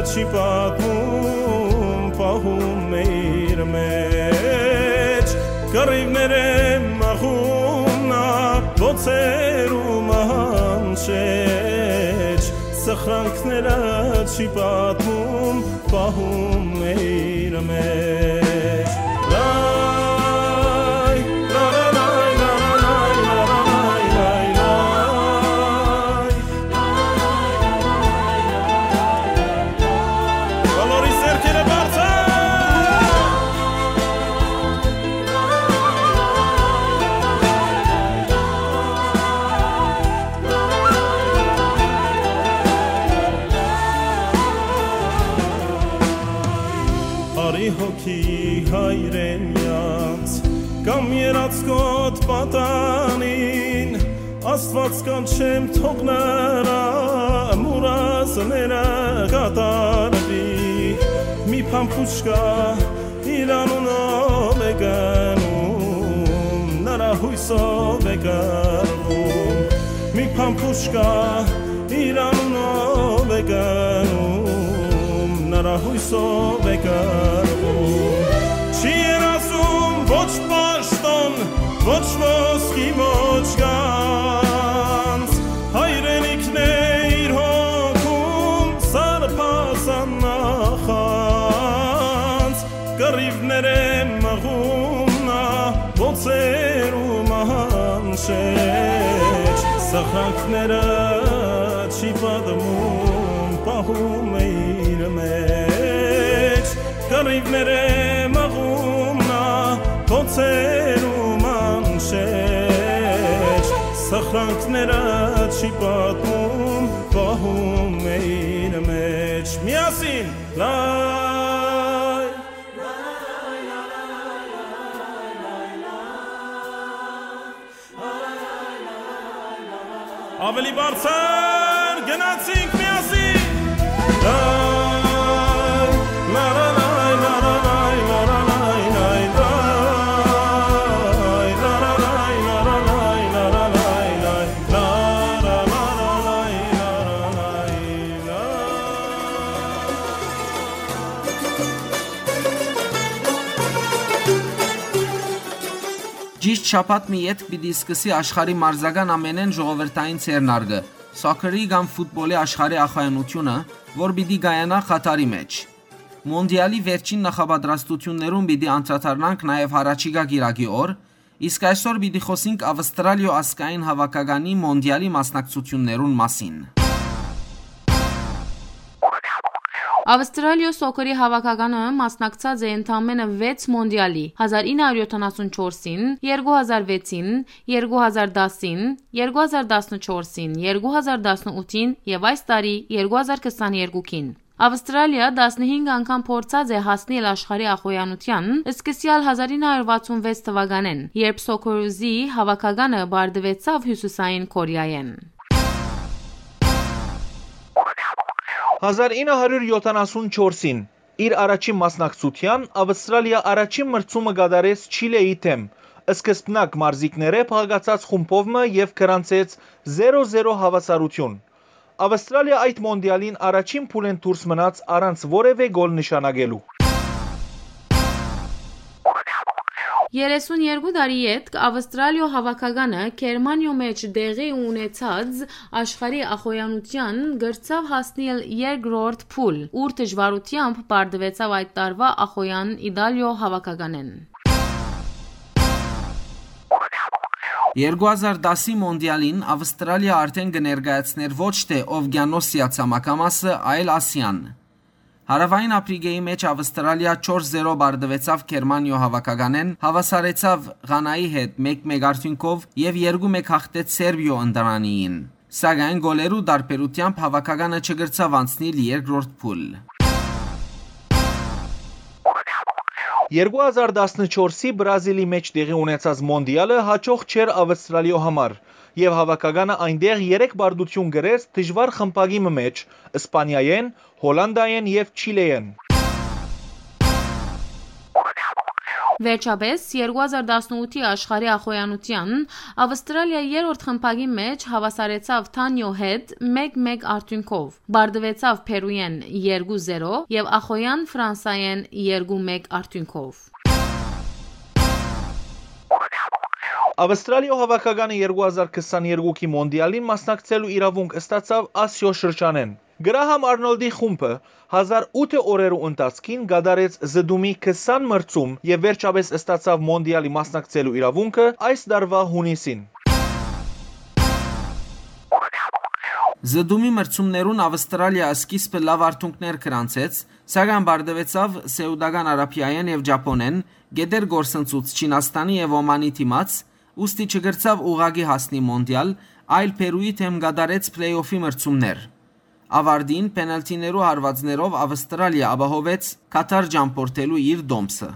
չի պատմում, պահում է իր մեջ, կռիվներ է մղում նա, բոցերու մանշեջ, սխրանքները չի պատմում, պահում է իր մեջ։ Լայ, լա, լա, լայ, լա, լա, լայ, լայ, լայ, լայ, լայ, լայ։ Բոլորի ձեռքերը բարձր։ Արի հոգի հայրենեանց, կամ երածկոտ պատանին, Աստուած կանչեմ, թող նրա մուրազները կատարվի, մի փամփուշկա իր անունով է գնում, նրա հույսով է կռվում, մի փամփուշկա իր անունով է գնում, նրա հույսով է կռվում։ Չի երազում ոչ պաշտոն, ոչ ոսկի, ոչ գանձ, հայրենիքն է իր հոգում սարսափազան նախանձ, կռիվներ է մղում նա, բոցերու մանշեջ, սխրանքները չի պատմում, պահում է իր մեջ, կռիվներ է մղում նա, բոցերու մանշեջ, սխրանքները չի պատմում, պահում է իր մեջ։ Միասին, լայ։ Ավելի բարձր, գնացինք միասին։ Ճիշտ շաբաթ մը ետք պիտի սկսի աշխարհի մարզական ամենէն ժողովրդային ձեռնարկը՝ սոքերի կամ ֆուտբոլի աշխարհի ախոյանութիւնը, որ պիտի կայանայ Խաթարի մէջ։ Մոնդիալի վերջին նախապատրաստութիւններուն պիտի անդրադառնանք նաեւ յառաջիկայ կիրակի օր, իսկ այսօր պիտի խօսենք Ավստրալիոյ ազգային հաւաքականի մոնդիալի մասնակցութիւններուն մասին։ Ավստրալիոյ սոքերի հաւաքականը մասնակցած է ընդամենը վեց մոնդիալի՝ հազար ինը հարիւր յոթանասուն չորսին, երկու հազար վեցին, երկու հազար տասին, երկու հազար տասնչորսին, երկու հազար տասնութին եւ այս տարի՝ երկու հազար քսաներկուքին։ Ավստրալիա տասնհինգ անգամ փորձած է հասնիլ աշխարհի ախոյանութեան, սկսեալ հազար ինը հարյուր վաթսուն վեց թուականէն, երբ Սոքորուզի հաւաքականը պարտուեցաւ Հիւսիսային Կորեայէն։ Հազար ինը հարիւր եթանասուն չորսին, իր առաջին մասնակցութեան, Ավստրալիա առաջին մրցումը կատարեց Չիլէի դէմ, սկզբնակ մարզիկներէ փաղկացած խումբով մը եւ գրանցեց զերո զերո հաւասարութիւն։ Ավստրալիա այդ մոնտիալին առաջին փուլէն դուրս մնաց առանց որեւէ գոլ նշանակելու։ Երեսուն երկու տարի ետք Ավստրալիոյ հաւաքականը Գերմանիոյ մէջ տեղի ունեցած աշխարհի ախոյանութեան կրցաւ հասնիլ երկրորդ փուլ, ուր դժուարութեամբ պարտուեցաւ այդ տարուայ ախոյեան Իտալիոյ հաւաքականէն։ Երկու հազար տասի մոնտիալին Ավստրալիա արդէն կը ներկայացնէր ոչ թէ Օվկիանոսիա ցամաքամասը, այլ Ասիան։ Հարաւային Ափրիկէի մէջ Ավստրալիա չորս զերո պարտուեցաւ Գերմանիոյ հաւաքականէն, հաւասարեցաւ Ղանայի հետ մէկ մէկ արդիւնքով եւ երկու մէկ հաղթեց Սերբիոյ ընտրանիին։ Սակայն գոլերու տարբերութեամբ հաւաքականը չկրցաւ անցնիլ երկրորդ փուլ։ Երկու հազար տասնչորսի Բրազիլի մէջ տեղի ունեցած մոնտիալը յաջող չէր Ավստրալիոյ համար, եւ հաւաքականը այնտեղ երեք պարտութիւն կրեց դժուար խմբակի մը մէջ՝ Սպանիայէն, Հոլանտայէն եւ Չիլէէն։ Վերջապէս, երկու հազար տասնութի աշխարհի ախոյանութեան Ավստրալիա երրորդ խմբակի մէջ հաւասարեցաւ Թանիոյ հետ մէկ մէկ արդիւնքով, պարտուեցաւ Փերուէն երկու զերո եւ ախոյեան Ֆրանսայէն երկու մէկ արդիւնքով։ Ավստրալիոյ հաւաքականը երկու հազար քսաներկուքի մոնտիալին մասնակցելու իրաւունք ստացաւ Ասիոյ շրջանէն։ Գրահամ Արնոլդի խումբը հազար ութը օրերու ընթացքին կատարեց զտումի քսան մրցում եւ վերջապէս ստացաւ մոնտիալի մասնակցելու իրաւունքը այս տարուայ յունիսին։ Զտումի մրցումներուն Ավստրալիա սկիզբը լաւ արդիւնքներ գրանցեց, սակայն պարտուեցաւ Սէուտական Արաբիայէն եւ Ճապոնէն, կէտեր կորսնցուց Չինաստանի եւ Օմանի դիմաց, ուստի չկրցաւ ուղղակի հասնի մոնտիալ, այլ Փերուի դէմ կատարեց փլէյ-օֆի մրցումներ։ Աւարտին, փենալթիներու հարուածներով Ավստրալիա ապահովեց Քաթար ճամբորդելու իր տոմսը։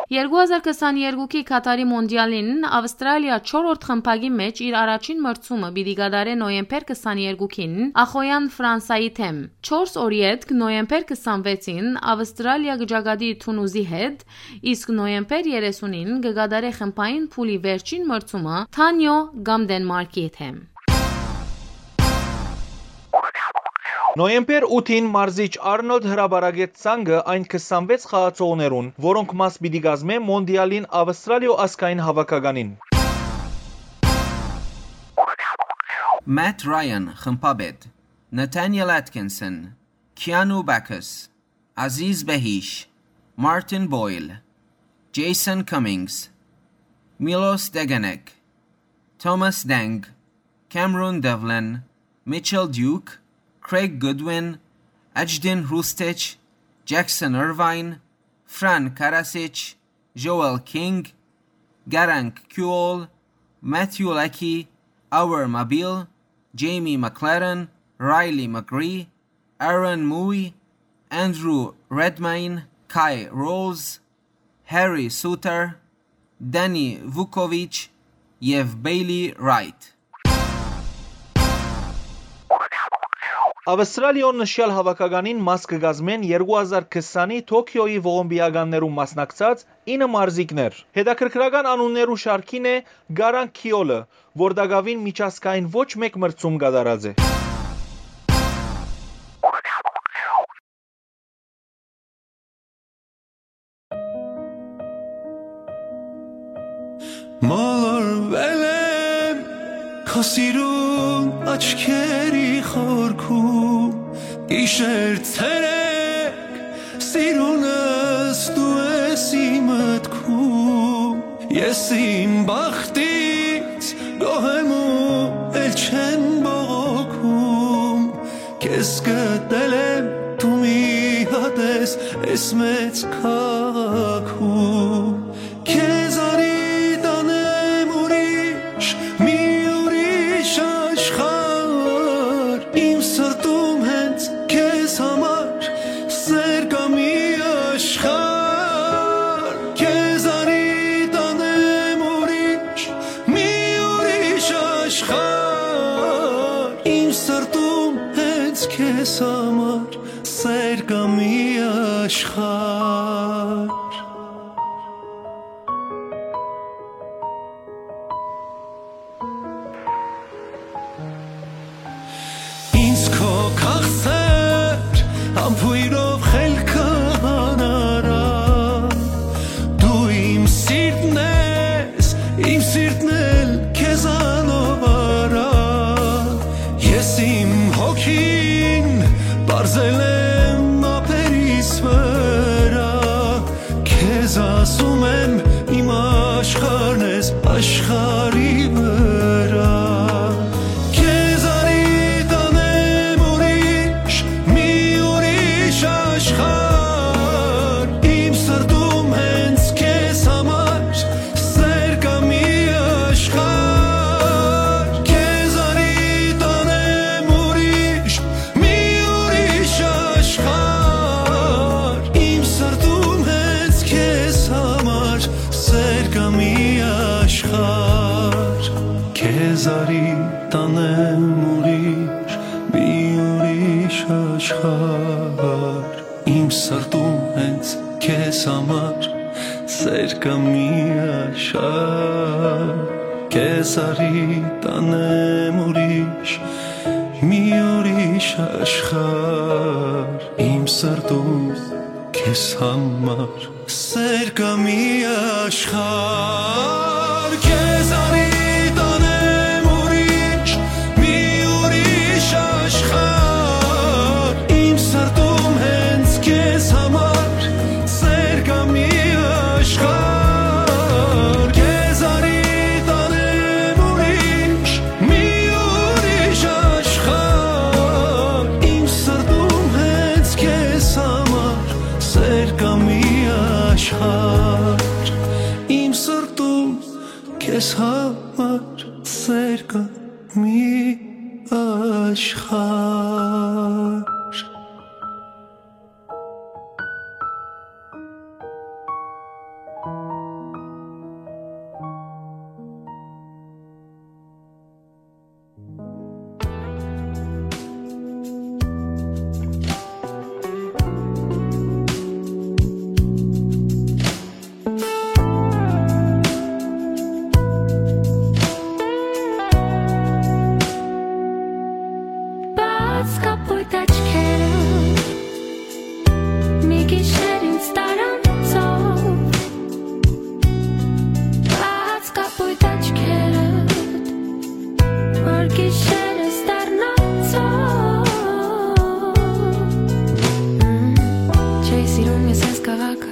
Երկու հազար քսաներկուքի Քաթարի մոնտիալին Ավստրալիա չորրորդ խմբակի մէջ իր առաջին մրցումը պիտի կատարէ նոյեմբեր քսաներկուքին ախոյեան Ֆրանսայի դէմ։ Չորս օր ետք, նոյեմբեր քսանվեցին, Ավստրալիա կը ճակատի Թունուզի հետ, իսկ նոյեմբեր երեսունին կը կատարէ խմբային փուլի վերջին մրցումը Թանիոյ կամ Դենմարկի դէմ։ Նոյեմբեր ութին մարզիչ Արնոլդ հրապարակեց ցանկը այն քսանվեց խաղացողներուն, որոնք մաս պիտի կազմեն մոնտիալին Ավստրալիոյ ազգային հաւաքականին։ Մաթ Ռայան, խմբապետ, Նաթանիել Ատքինսոն, Քիանու Բաքս, Ազիզ Բեհիշ, Մարտին Պոյլ, Ջեյսոն Քամինգս, Միլոս Տեգենեկ, Թոմաս Դենգ, Քամերոն Դեվլին, Միչել Դիուք, Քրեյգ Գուդվին, Աջդին Հրուստիչ, Ջեքսոն Էրվայն, Ֆրանկ Կարասիչ, Ժոել Քինգ, Գարանկ Քիուոլ, Մաթիու Լեքի, Աուեր Մաբիլ, Ջեյմի Մակլարեն, Ռայլի Մակրի, Արոն Մուի, Անդրու Ռեդմայն, Քայ Ռոուզ, Հարի Սուտեր, Դանի Վուկովիչ եւ Բեյլի Ռայթ։ Ավստրալիոյ նշեալ հաւաքականին մաս կը կազմեն երկու հազար քսանի Թոքիոյի ողոմպիականներուն մասնակցած ինը մարզիկներ։ Հետաքրքրական անուններու շարքին է Գարանկ Քիոլը, որ տակաւին միջազգային ոչ մէկ մրցում կատարած է։ Մոլորվել եմ քո սիրուն աչքերի խորքում, գիշեր ցերեկ սիրունս դու ես իմ մտքում, ես իմ բախտից գոհ եմ ու էլ չեմ բողոքում, քեզ գտել եմ դու մի հատ ես, ես մեծ քաղաքում, քեզ արի տանեմ ուրիշ, մի ուրիշ աշխարհ, Իմ սրտում հենց քեզ համար սեր կայ մի աշխարհ, քեզ արի տանեմ ուրիշ, մի ուրիշ աշխարհ։ Իմ սրտում հենց քեզ համար սեր կայ մի աշխարհ։ Ինձ քո քաղցր համբոյրով խելքը հանարա, դու իմ սիրտն ես, իմ սիրտն էլ քեզանով արա։ Ես իմ հոգին պարզել եմ ափերիս վրայ, քեզ ասում եմ, իմ աշխարհն ես աշխարհի վրայ։ Քեզ արի տանեմ ուրիշ, մի ուրիշ աշխարհ, իմ սրտում հենց քեզ համար սեր կայ մի աշխարհ, քեզ արի տանեմ ուրիշ, մի ուրիշ աշխարհ, իմ սրտում հենց քեզ համար սեր կայ մի աշխարհ, քեզ արի տանեմ ուրիշ, մի ուրիշ աշխարհ, իմ սրտում հենց քեզ համար սեր կայ մի աշխարհ, քեզ արի տանեմ ուրիշ, մի ուրիշ աշխարհ, իմ սրտում քեզ համար սեր կայ մի աշխարհ, քեզ արի տանեմ ուրիշ, մի ուրիշ աշխարհ, իմ սրտում հենց քեզ համար սեր կայ մի աշխարհ, քեզ արի տանեմ ուրիշ, մի ուրիշ աշխարհ, իմ սրտում հենց քեզ համար սեր կայ մի աշխարհ, իմ սրտում քեզ համար սեր կայ մի աշխարհ։ Բաց կապոյտ աչքերը, մի գիշեր ինձ տարանցով, բաց կապոյտ աչքերը, որ գիշերս դառնանցով։ Չէի սիրում ես այս քաղաքը,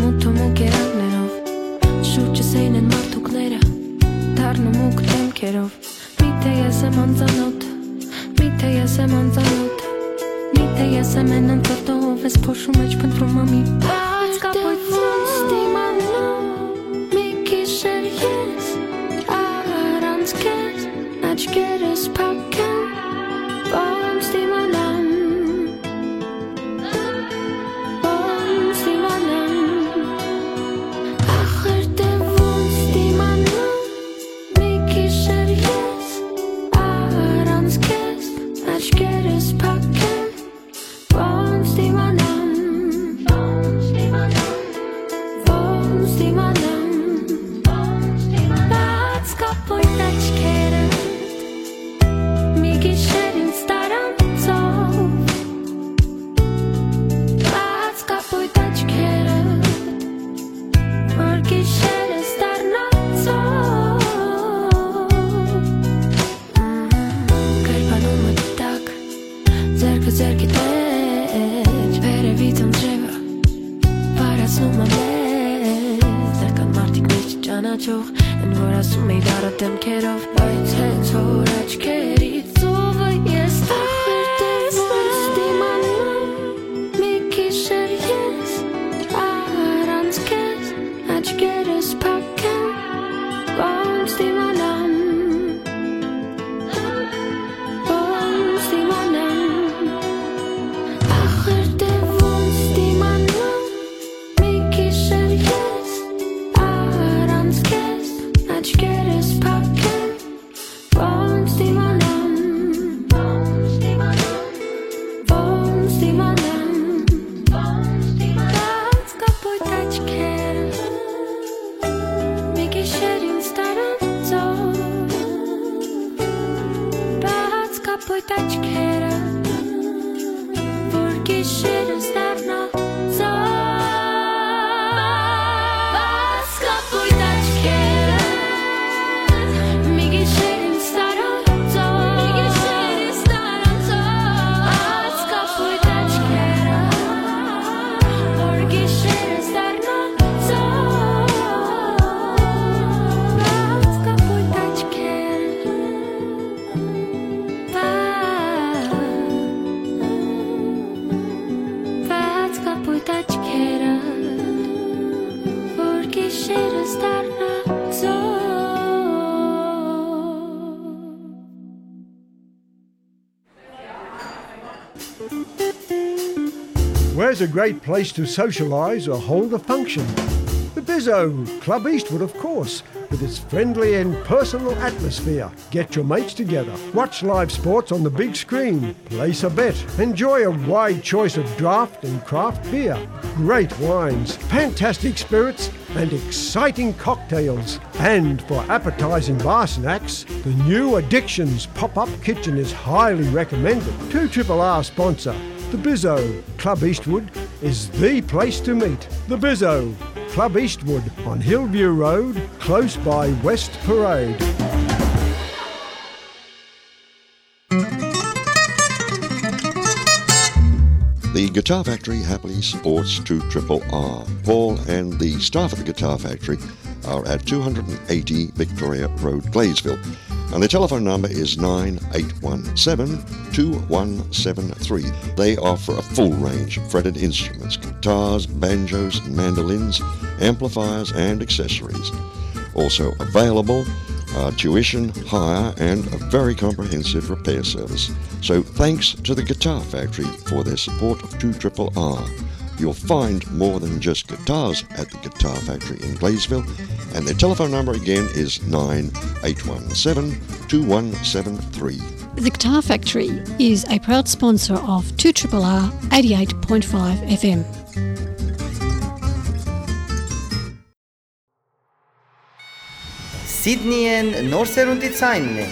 մութ ու մուգ երանգներով, շուրջս էին են մարդուկները, դառնու մուգ դեմքերով։ Միթե ես եմ անծանոթ, միթե ես եմ անծանոթ, միթե ես եմ են անծանոթ, ով ես փոշու մեջ փնտրում ամի բաց կապոյտ ոնց դիմանամ, մի գիշեր ես առանց քեզ, աչքերս փակ են, ոնց դիմանամ, ոնց դիմանամ, ախր դե ոնց դիմանամ, մի գիշեր ես առանց քեզ, աչքերս փակ են, ոնց դիմանամ, ոնց դիմանամ, ոնց դիմանամ, ոնց դիմանամ, բաց կապոյտ աչքերը, մի գիշեր ինձ տարանցով, բաց կապոյտ աչքերը, որ գիշերս դառնանցով։ Կերպանումը տակ, ձեռքը ձեռքի տակ, վերևից անձրևը վարացնում ամեն, տեղ կան մարդիկ միշտ ճանաչող, են որ ասում էի դառը դեմքերով, բայց հենց որ աչքերիցովը ես տեսնեմ, մի գիշեր ես առանց քեզ, աչքերս փակ են, ոնց դիմանամ, ոնց դիմանամ, Կապոյտ աչքերը, որ գիշերս դառնա ծով։ Բաց կապոյտ աչքերը, մի գիշեր ինձ տարան ծով։ Մի գիշեր ինձ տարան ծով։ Բաց կապոյտ աչքերը, որ գիշերս դառնա ծով։ Բաց կապոյտ աչքերը, բաց կապոյտ աչքերը, որ գիշերս դառնա ծով։ Where's a great place to socialise or hold a function? The Bizzo, Club Eastwood, of course, with its friendly and personal atmosphere. Get your mates together, watch live sports on the big screen, place a bet, enjoy a wide choice of draft and craft beer, great wines, fantastic spirits, and exciting cocktails. And for appetising bar snacks, the new Addictions pop-up kitchen is highly recommended. Two Triple R sponsor, the Bizzo, Club Eastwood, is the place to meet. The Bizzo, Club Eastwood on Hillview Road, close by West Parade. The Guitar Factory happily supports two triple R. Paul and the staff at the Guitar Factory are at two hundred and eighty Victoria Road, Gladesville. And the telephone number is nine eight one seven, two one seven three. They offer a full range of fretted instruments, guitars, banjos, mandolins, amplifiers, and accessories. Also available are tuition, hire, and a very comprehensive repair service. So thanks to the Guitar Factory for their support of two triple R. You'll find more than just guitars at the Guitar Factory in Gladesville, and their telephone number again is nine eight one seven, two one seven three. The Guitar Factory is a proud sponsor of two triple R eighty-eight point five F M. Սիդնիեն նոր սերունդի ցայնն է։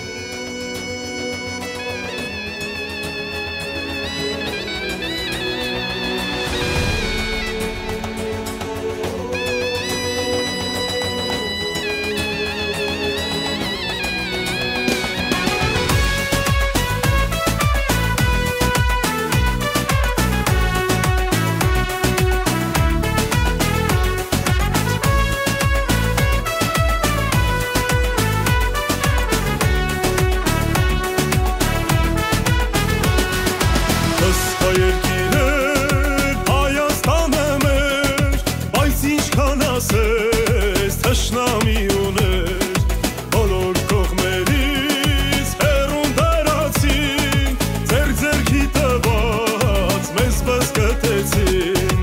Ըստ երկիրը Հայաստանը մեր, բայց ինչքան ասես թշնամի ուներ, բոլոր կողմերից հեռուն տարածին, ձեր ձեռքի տված մեզ բզկտեցին,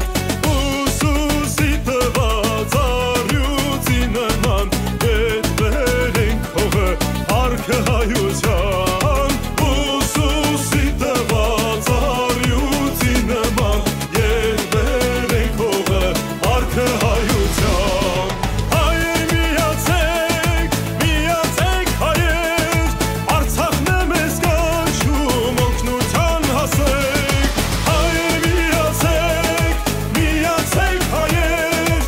ուսուսի տված առյուծի նման, ետ բերենք հողը, փառքը հայության, ուսուսի տված առյուծի նման, ետ բերենք հողը, փառքը հայության։ Հայեր միացեք, միացեք հայեր, Արցախն է մեզ կանչում, օգնության հասեք։ Հայեր միացեք, միացեք հայեր,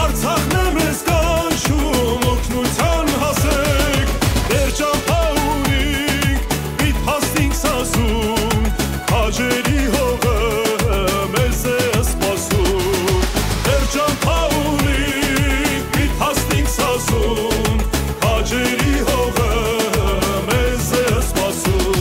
Արցախն է մեզ կանչում, օգնության հասեք։ Մեր ճամբայ ուղինք, պիտի հասնենք Սասուն, քաջերի հողը մեզ է սպասում։ Մեր ճամբայ ուղինք, պիտի հասնենք Սասուն, քաջերի հողը մեզ է սպասում։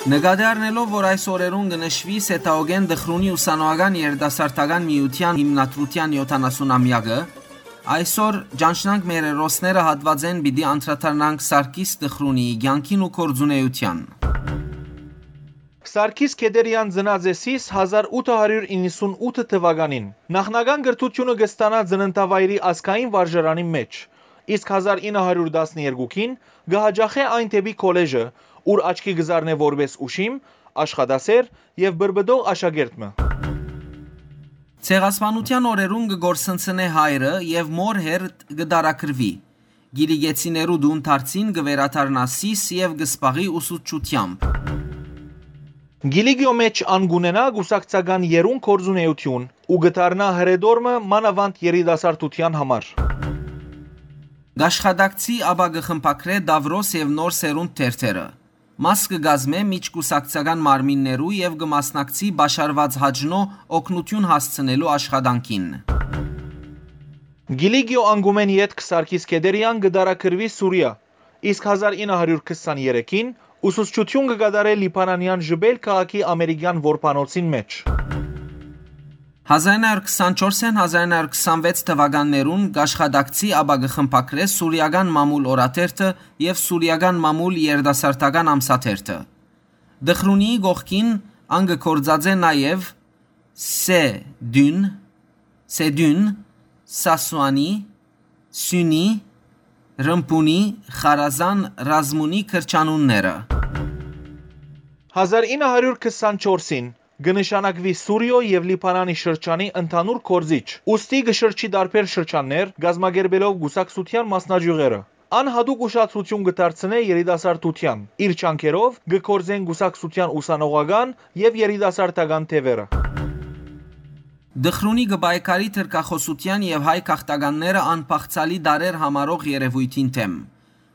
Նկատի առնելով, որ այս օրերուն կը նշուի Սեթաուկէն Տխրունի ուսանողական երիտասարդական միութեան հիմնադրութեան յոթանասուն ամեակը, այսօր «Ճանչնանք մեր հերոսները» հատուածէն պիտի անդրադառնանք Սարգիս Տխրունիի կեանքին ու գործունէութեան։ Սարգիս Քեդերեան ծնած է Սիս հազար ութը հարիւր իննսուն ութ թուականին։ Նախնական կրթութիւնը կը ստանայ ծննդավայրի ազգային վարժարանին մէջ, իսկ հազար ինը հարիւր տասներկուքին կը յաճախէ այն դէպի քոլեժը, ուր աչքի կը զարնէ որպէս ուշիմ, աշխատասէր եւ պրպտող աշակերտ մը։ Ցեղասպանութեան օրերուն կը կորսնցնէ հայրը եւ մոր հերթ կը տարագրուի։ Կիլիկեցիներու տուն դարձին կը վերադառնայ Սիս եւ կը զբաղի ուսուցչութեամբ։ Կիլիկիոյ մէջ ան կ'ունենայ կուսակցական եռուն գործունէութիւն ու կը դառնայ հրետոր մը մանաւանդ երիտասարդութեան համար։ Կ'աշխատակցի, ապա կը խմբագրէ «Տաւրոս» եւ «Նոր սերունդ» թերթերը։ Մաս կը կազմէ միջկուսակցական մարմիններու եւ կը մասնակցի Պաշարուած Հաճնոյ օգնութիւն հասցնելու աշխատանքին։ Կիլիկիոյ անկումէն ետք Սարգիս Քեդերեան կը տարագրուի Սուրիա, իսկ հազար ինը հարիւր քսաներեքին ուսուցչութիւն կը կատարէ լիբանանեան Ժպէյլ քաղաքի ամերիկեան որբանոցին մէջ։ Հազար ինը հարիւր քսանչորսէն հազար ինը հարիւր քսանվեց թուականներուն կ'աշխատակցի, ապա կը խմբագրէ Սուրիական մամուլ օրաթերթը եւ Սուրիական մամուլ երիտասարդական ամսաթերթը։ Տխրունիի կողքին ան կը գործածէ նաեւ Սեդուն, Սեդուն, Սասուանի, Սիւնի, Ռմբունի, Խարազան, Ռազմունի կրթանիւնները։ Հազար ինը հարիւր քսանչորսին կը նշանակուի Սուրիոյ եւ Լիբանանի շրջանի ընդհանուր գործիչ, ուստի կը շրջի տարբեր շրջաններ, կազմակերպելով կուսակցութեան մասնաճիւղերը։ Ան յատուկ ուշադրութիւն կը դարձնէ երիտասարդութեան։ Իր ջանքերով կը գործեն կուսակցութեան ուսանողական եւ երիտասարդական թեւերը։ Տխրունի կը պայքարի թրքախօսութեան եւ հայ գաղթականները անբաղձալի տարրեր համարող երեւոյթին դէմ։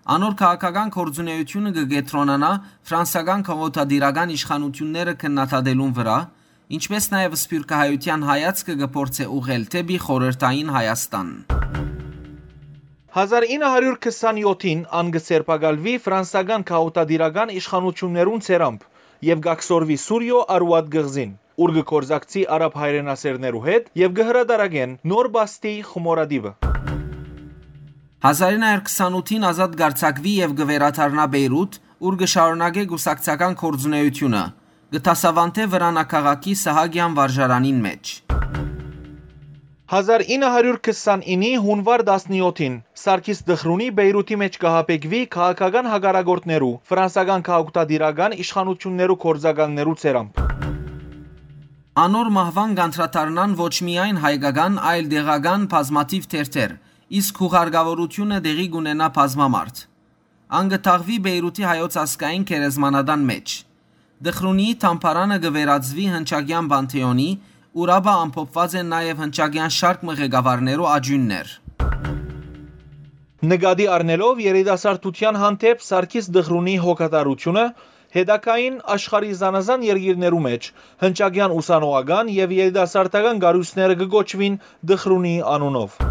Անոր քաղաքական գործունէութիւնը կը կեդրոնանայ ֆրանսական քաղաքատիրական իշխանութիւնները քննադատելուն վրայ, ինչպէս նաեւ սփիւռքահայութեան հայացքը կը փորձէ ուղղել դէպի խորհրդային Հայաստան։ Հազար ինը հարիւր քսանեթին ան կը սերբակալուի ֆրանսական քաղաքատիրական իշխանութիւններուն ձեռամբ եւ կ'աքսորուի Սուրիոյ Արուատ կղզին, ուր կը գործակցի արաբ հայրենասէրներու հետ եւ կը հրատարակեն Նոր Պաստի խմորատիպը։ Հազար ինը հարիւր քսանութին ազատ կ'արձակուի եւ կը վերադառնայ Պէյրութ, ուր կը շարունակէ կուսակցական գործունէութիւնը, կը դասաւանդէ Վրանաքաղաքի Սահակեան վարժարանին մէջ։ Հազար ինը հարիւր քսանինի յունուար տասնեթին Սարգիս Տխրունի Պէյրութի մէջ կը յաբեկուի քաղաքական հակառակորդներու, ֆրանսական քաղաքատիրական իշխանութիւններու գործակալներու ձեռամբ։ Անոր մահուան կ'անդրադառնան ոչ միայն հայկական, այլ տեղական բազմաթիւ թերթեր, իսկ յուղարկաւորութիւնը տեղի կ'ունենայ բազմամարդ։ Ան կը թաղուի Պէյրութի հայոց ազգային գերեզմանատան մէջ։ Տխրունիի թամբարանը կը վերածուի հնչակեան Պանթէոնի, ուր ապա ամփոփուած են նաեւ հնչակեան շարք մը ղեկավարներու աճիւններ։ Նկատի առնելով երիտասարդութեան հանդէպ Սարգիս Տխրունի հոգատարութիւնը, հետագային աշխարհի զանազան երկիրներու մէջ հնչակեան ուսանողական եւ երիտասարդական կառոյցները կը կոչուին Տխրունի անունով։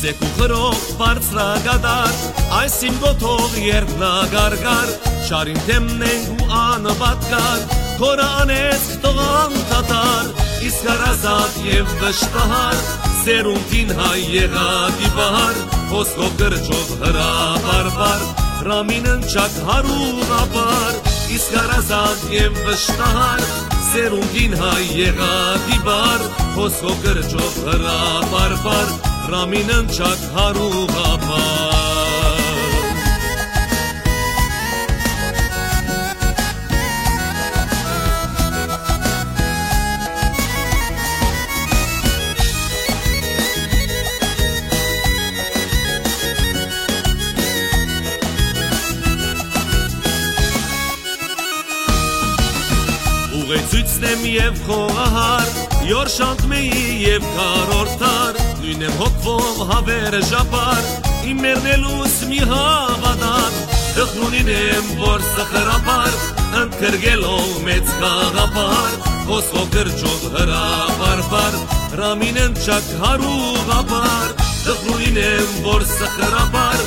Սեկուխրող բարձրակատար, այս իմ կոթող երդնակարկար, չարին դեմն ենք ու անպատկար, քորը անեծք տող անդադար, իսկ հարազատ եւ վշտահար, սերունդին հայ եղած ի պահար, խոսքով կրճով հրապարպար, ռամին ընչակ հարուղապար, իսկ հարազատ եւ վշտահար, սերունդին հայ եղած ի պահար, խոսքով կրճով հրապարպար, ռամին ընչակ հարուղապար։ Ուղեցի Ցնեմ եւ խոհահար, յոր շանթ մեի եւ քառորդ դար, նոյնեմ հոգվով հավերժապար, իմ մեռնելուս մի հաւատար, տխրունին եմ, որ սխրապար, ընդգրկելով մեծ գաղափար, խոսքով կրճով հրապարպար, Ռամին ընչակ հարուղապար, տխրունին եմ, որ սխրապար,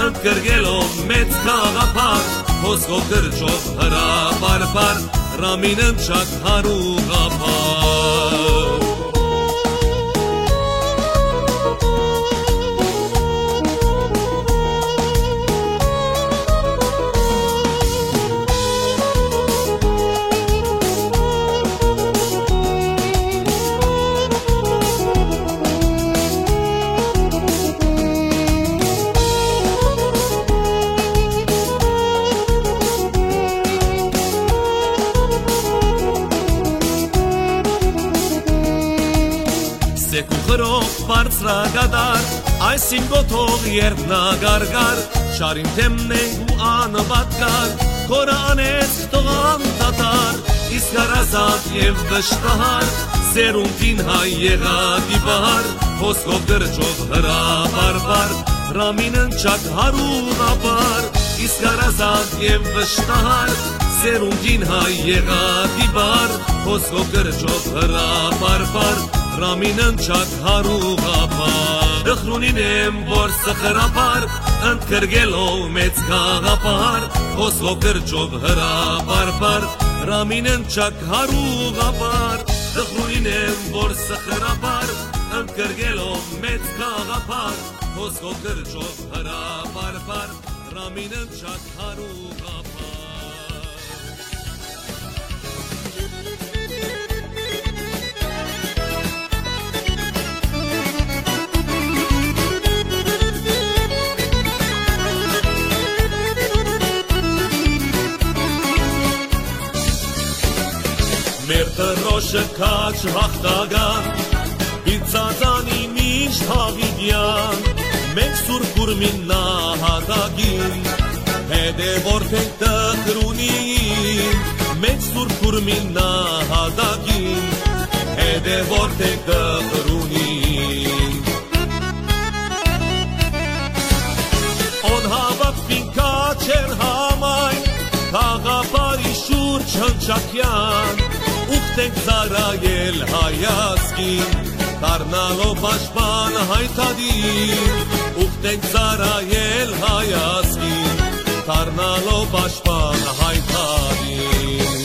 ընդգրկելով մեծ գաղափար, խոսքով կրճով հրապարպար, Ռամին ընչակ հարուղապար։ Սեկ ու խրող բարձրակատար, այս իմ կոթող երբ նա կարկար, շարին դեմն ենք ու անպատկար, քորը անեց թող անդադար, իսկ հարազատ եւ վշտահար, սերունդին հայ եղած ի վար, խոսքով կրճով հրապարպար, Ռամին ընչակ հարուղապար, իսկ հարազատ եւ վշտահար, սերունդին հայ եղած ի վար, խոսքով կրճով հրապարպար, Ռամին ընչակ հարուղապար։ Տխրունին եմ, որ սխրապար, ընդգրկելով մեծ գաղափար, խոսքով կրճով հրապարպար, Ռամին ընչակ հարուղապար։ Տխրունին եմ, որ սխրապար, ընդգրկելով մեծ գաղափար, խոսքով կրճով հրապարպար, Ռամին ընչակ հարուղապար։ Մեր դրոշը քաջ յաղթական, իր ծածանի միշտ յաւիտեան, մենք Սուրբ Ուրմին նահատակին, հետեւորդ ենք տխրունին, մենք Սուրբ Ուրմին նահատակին, հետեւորդ ենք տխրունին։ Ուն հաւատքին քաջ էր համայն, գաղափարի շուրջ հնչակեան, ուխտենք ծառայել հայ ազգին, դառնալով պաշտպան հայ դատին, ուխտենք ծառայել հայ ազգին, դառնալով պաշտպան հայ դատին։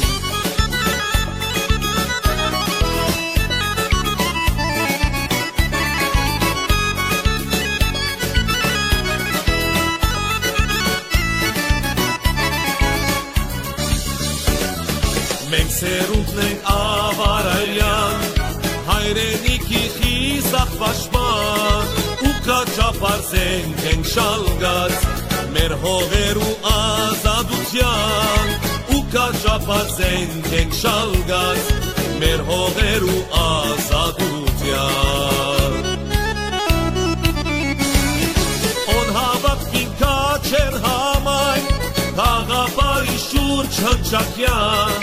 Մենք սերունդն ենք Աւարարեան, հայրենիքի խիզախ պաշտպան, ու քաջ ափարս ենք, ենք շալկած մեր հողերու ազատութեան, ու քաջ ափարս ենք, ենք շալկած մեր հողերու ազատութեան։ Ուն հաւատքին քաջ էր համայն, գաղափարի շուրջ հնչակեան,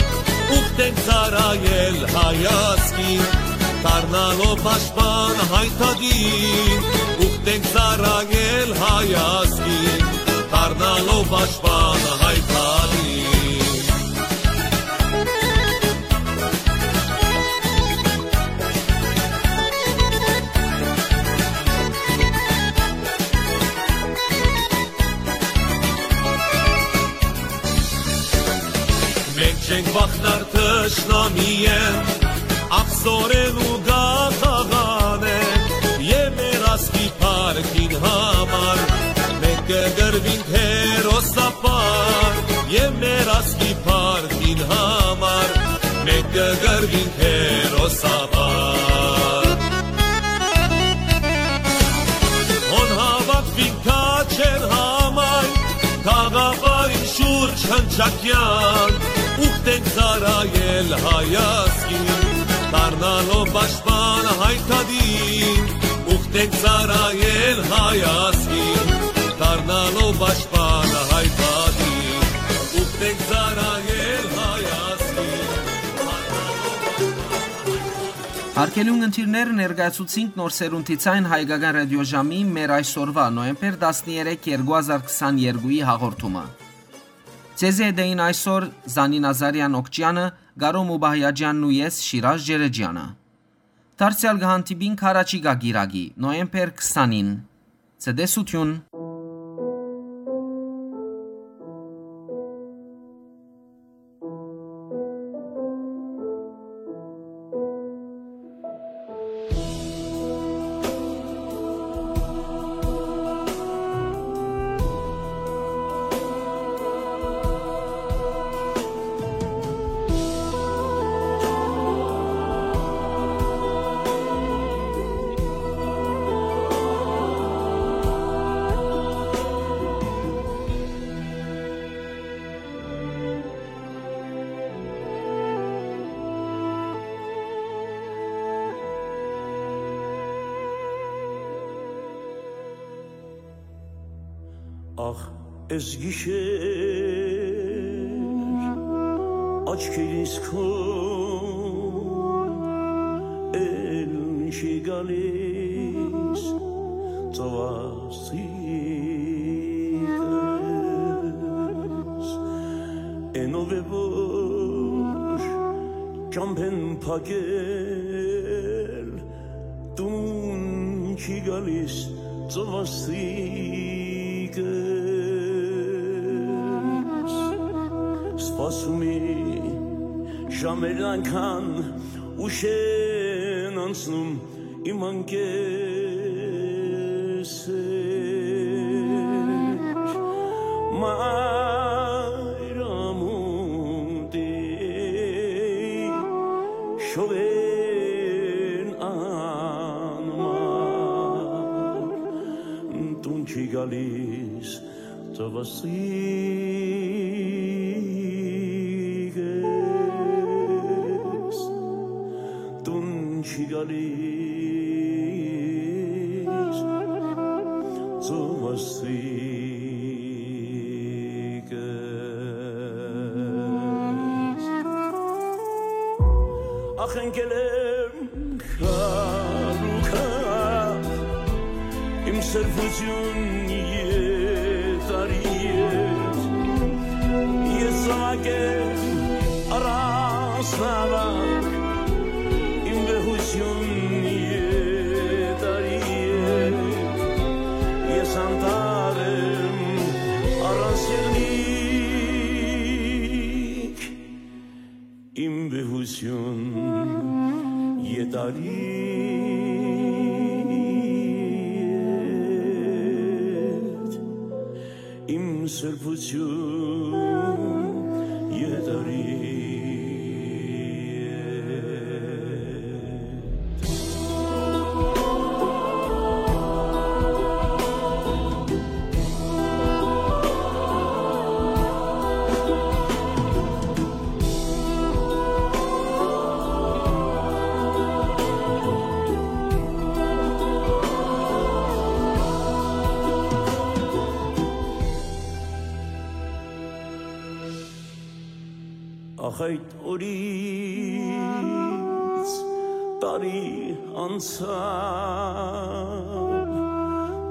ուխտենք ծառայել հայ ազգին, դառնալով պաշտպան հայ դատին, ուխտենք ծառայել հայ ազգին, դառնալով պաշտպան հայ դատին։ Մենք չենք վախնար թշնամիեն, ախսորեն ու գաղաղանեն, եւ մեր ազգի փառքին համար մենք կգրվինք հերոսապար, եւ մեր ազգի փառքին համար մենք կգրվինք հերոսապար։ Հոն հաւաքվին քաչեր համայն, գաղափարին շուրջ հնչակեան, ուխտենք ծառայել հայ ազգին, դառնալով պաշտպան հայ դատին, ուխտենք ծառայել հայ ազգին, դառնալով պաշտպան հայ դատին, ուխտենք ծառայել հայ ազգին, դառնալով Արգելուն ընտիրներ, ներկայացուցինք Նոր Սերունդի Ցայն հայկական ռադիոժամի մեր այսօրուայ, նոյեմբեր տասներեք, երկու հազար քսաներկուի հաղորդումը։ Ձեզի հետ էին այսօր Զանին Ազարեան Օքճեանը, Կարո Մուբահեաճեանն ու ես, Շիրազ Ջերեջեանը։ Դարձեալ կը հանդիպինք յառաջիկայ կիրակի, նոյեմբեր քսանին։ Ցտեսութիւն։ Ախ, էս գիշեր աչքերիս քո էլ չի գալիս ծովասիկս, էնով է որ ճամբեն փակել տուն չի գալիս ծովասիկս, սպասումի ժամերն այնքան ուշ են անցնում իմ անկեսեր, մայր ամուտի շողերն անմար տուն չի գալիս ծովասիկս, տուն չի գալիս ծովասիկս։ Ախ, ընկել եմ քարուքա, իմ սրբություն եթարի հետ, ես զաւակ եմ առանց նավակ, իմ վեհություն եթարի հետ, ես անտառ եմ առանց եղնիկ, իմ վեհություն եթարի հետ, իմ սրբություն եթարի հետ։ Ախ, այդ օրից տարի անցաւ,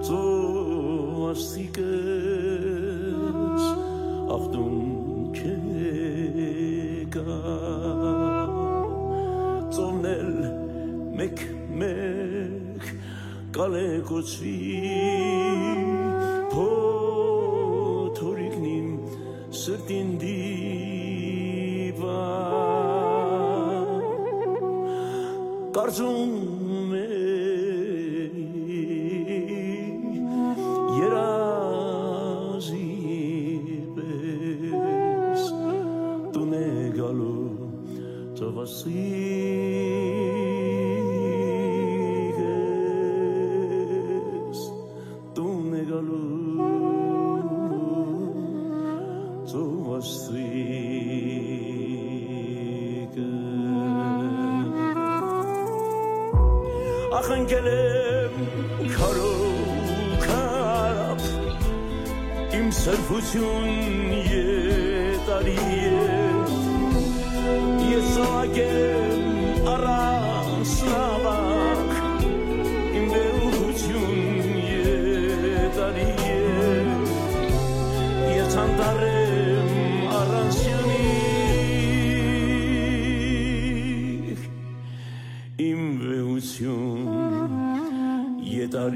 ծովասիկս ախտուն չեկա, ծովն էլ մեկ-մեկ կալեկոծուի, փոթորիկն իմ սրտին դիպա, կարծում է երազի պես տուն է գալու ծովասիկս, տուն է գալու ծովասիկս։ Ախ, ընկել եմ քարով քարապ, իմ սրբություն եթարի հետ, ես զաւակ եմ առանց Վեհություն, ետար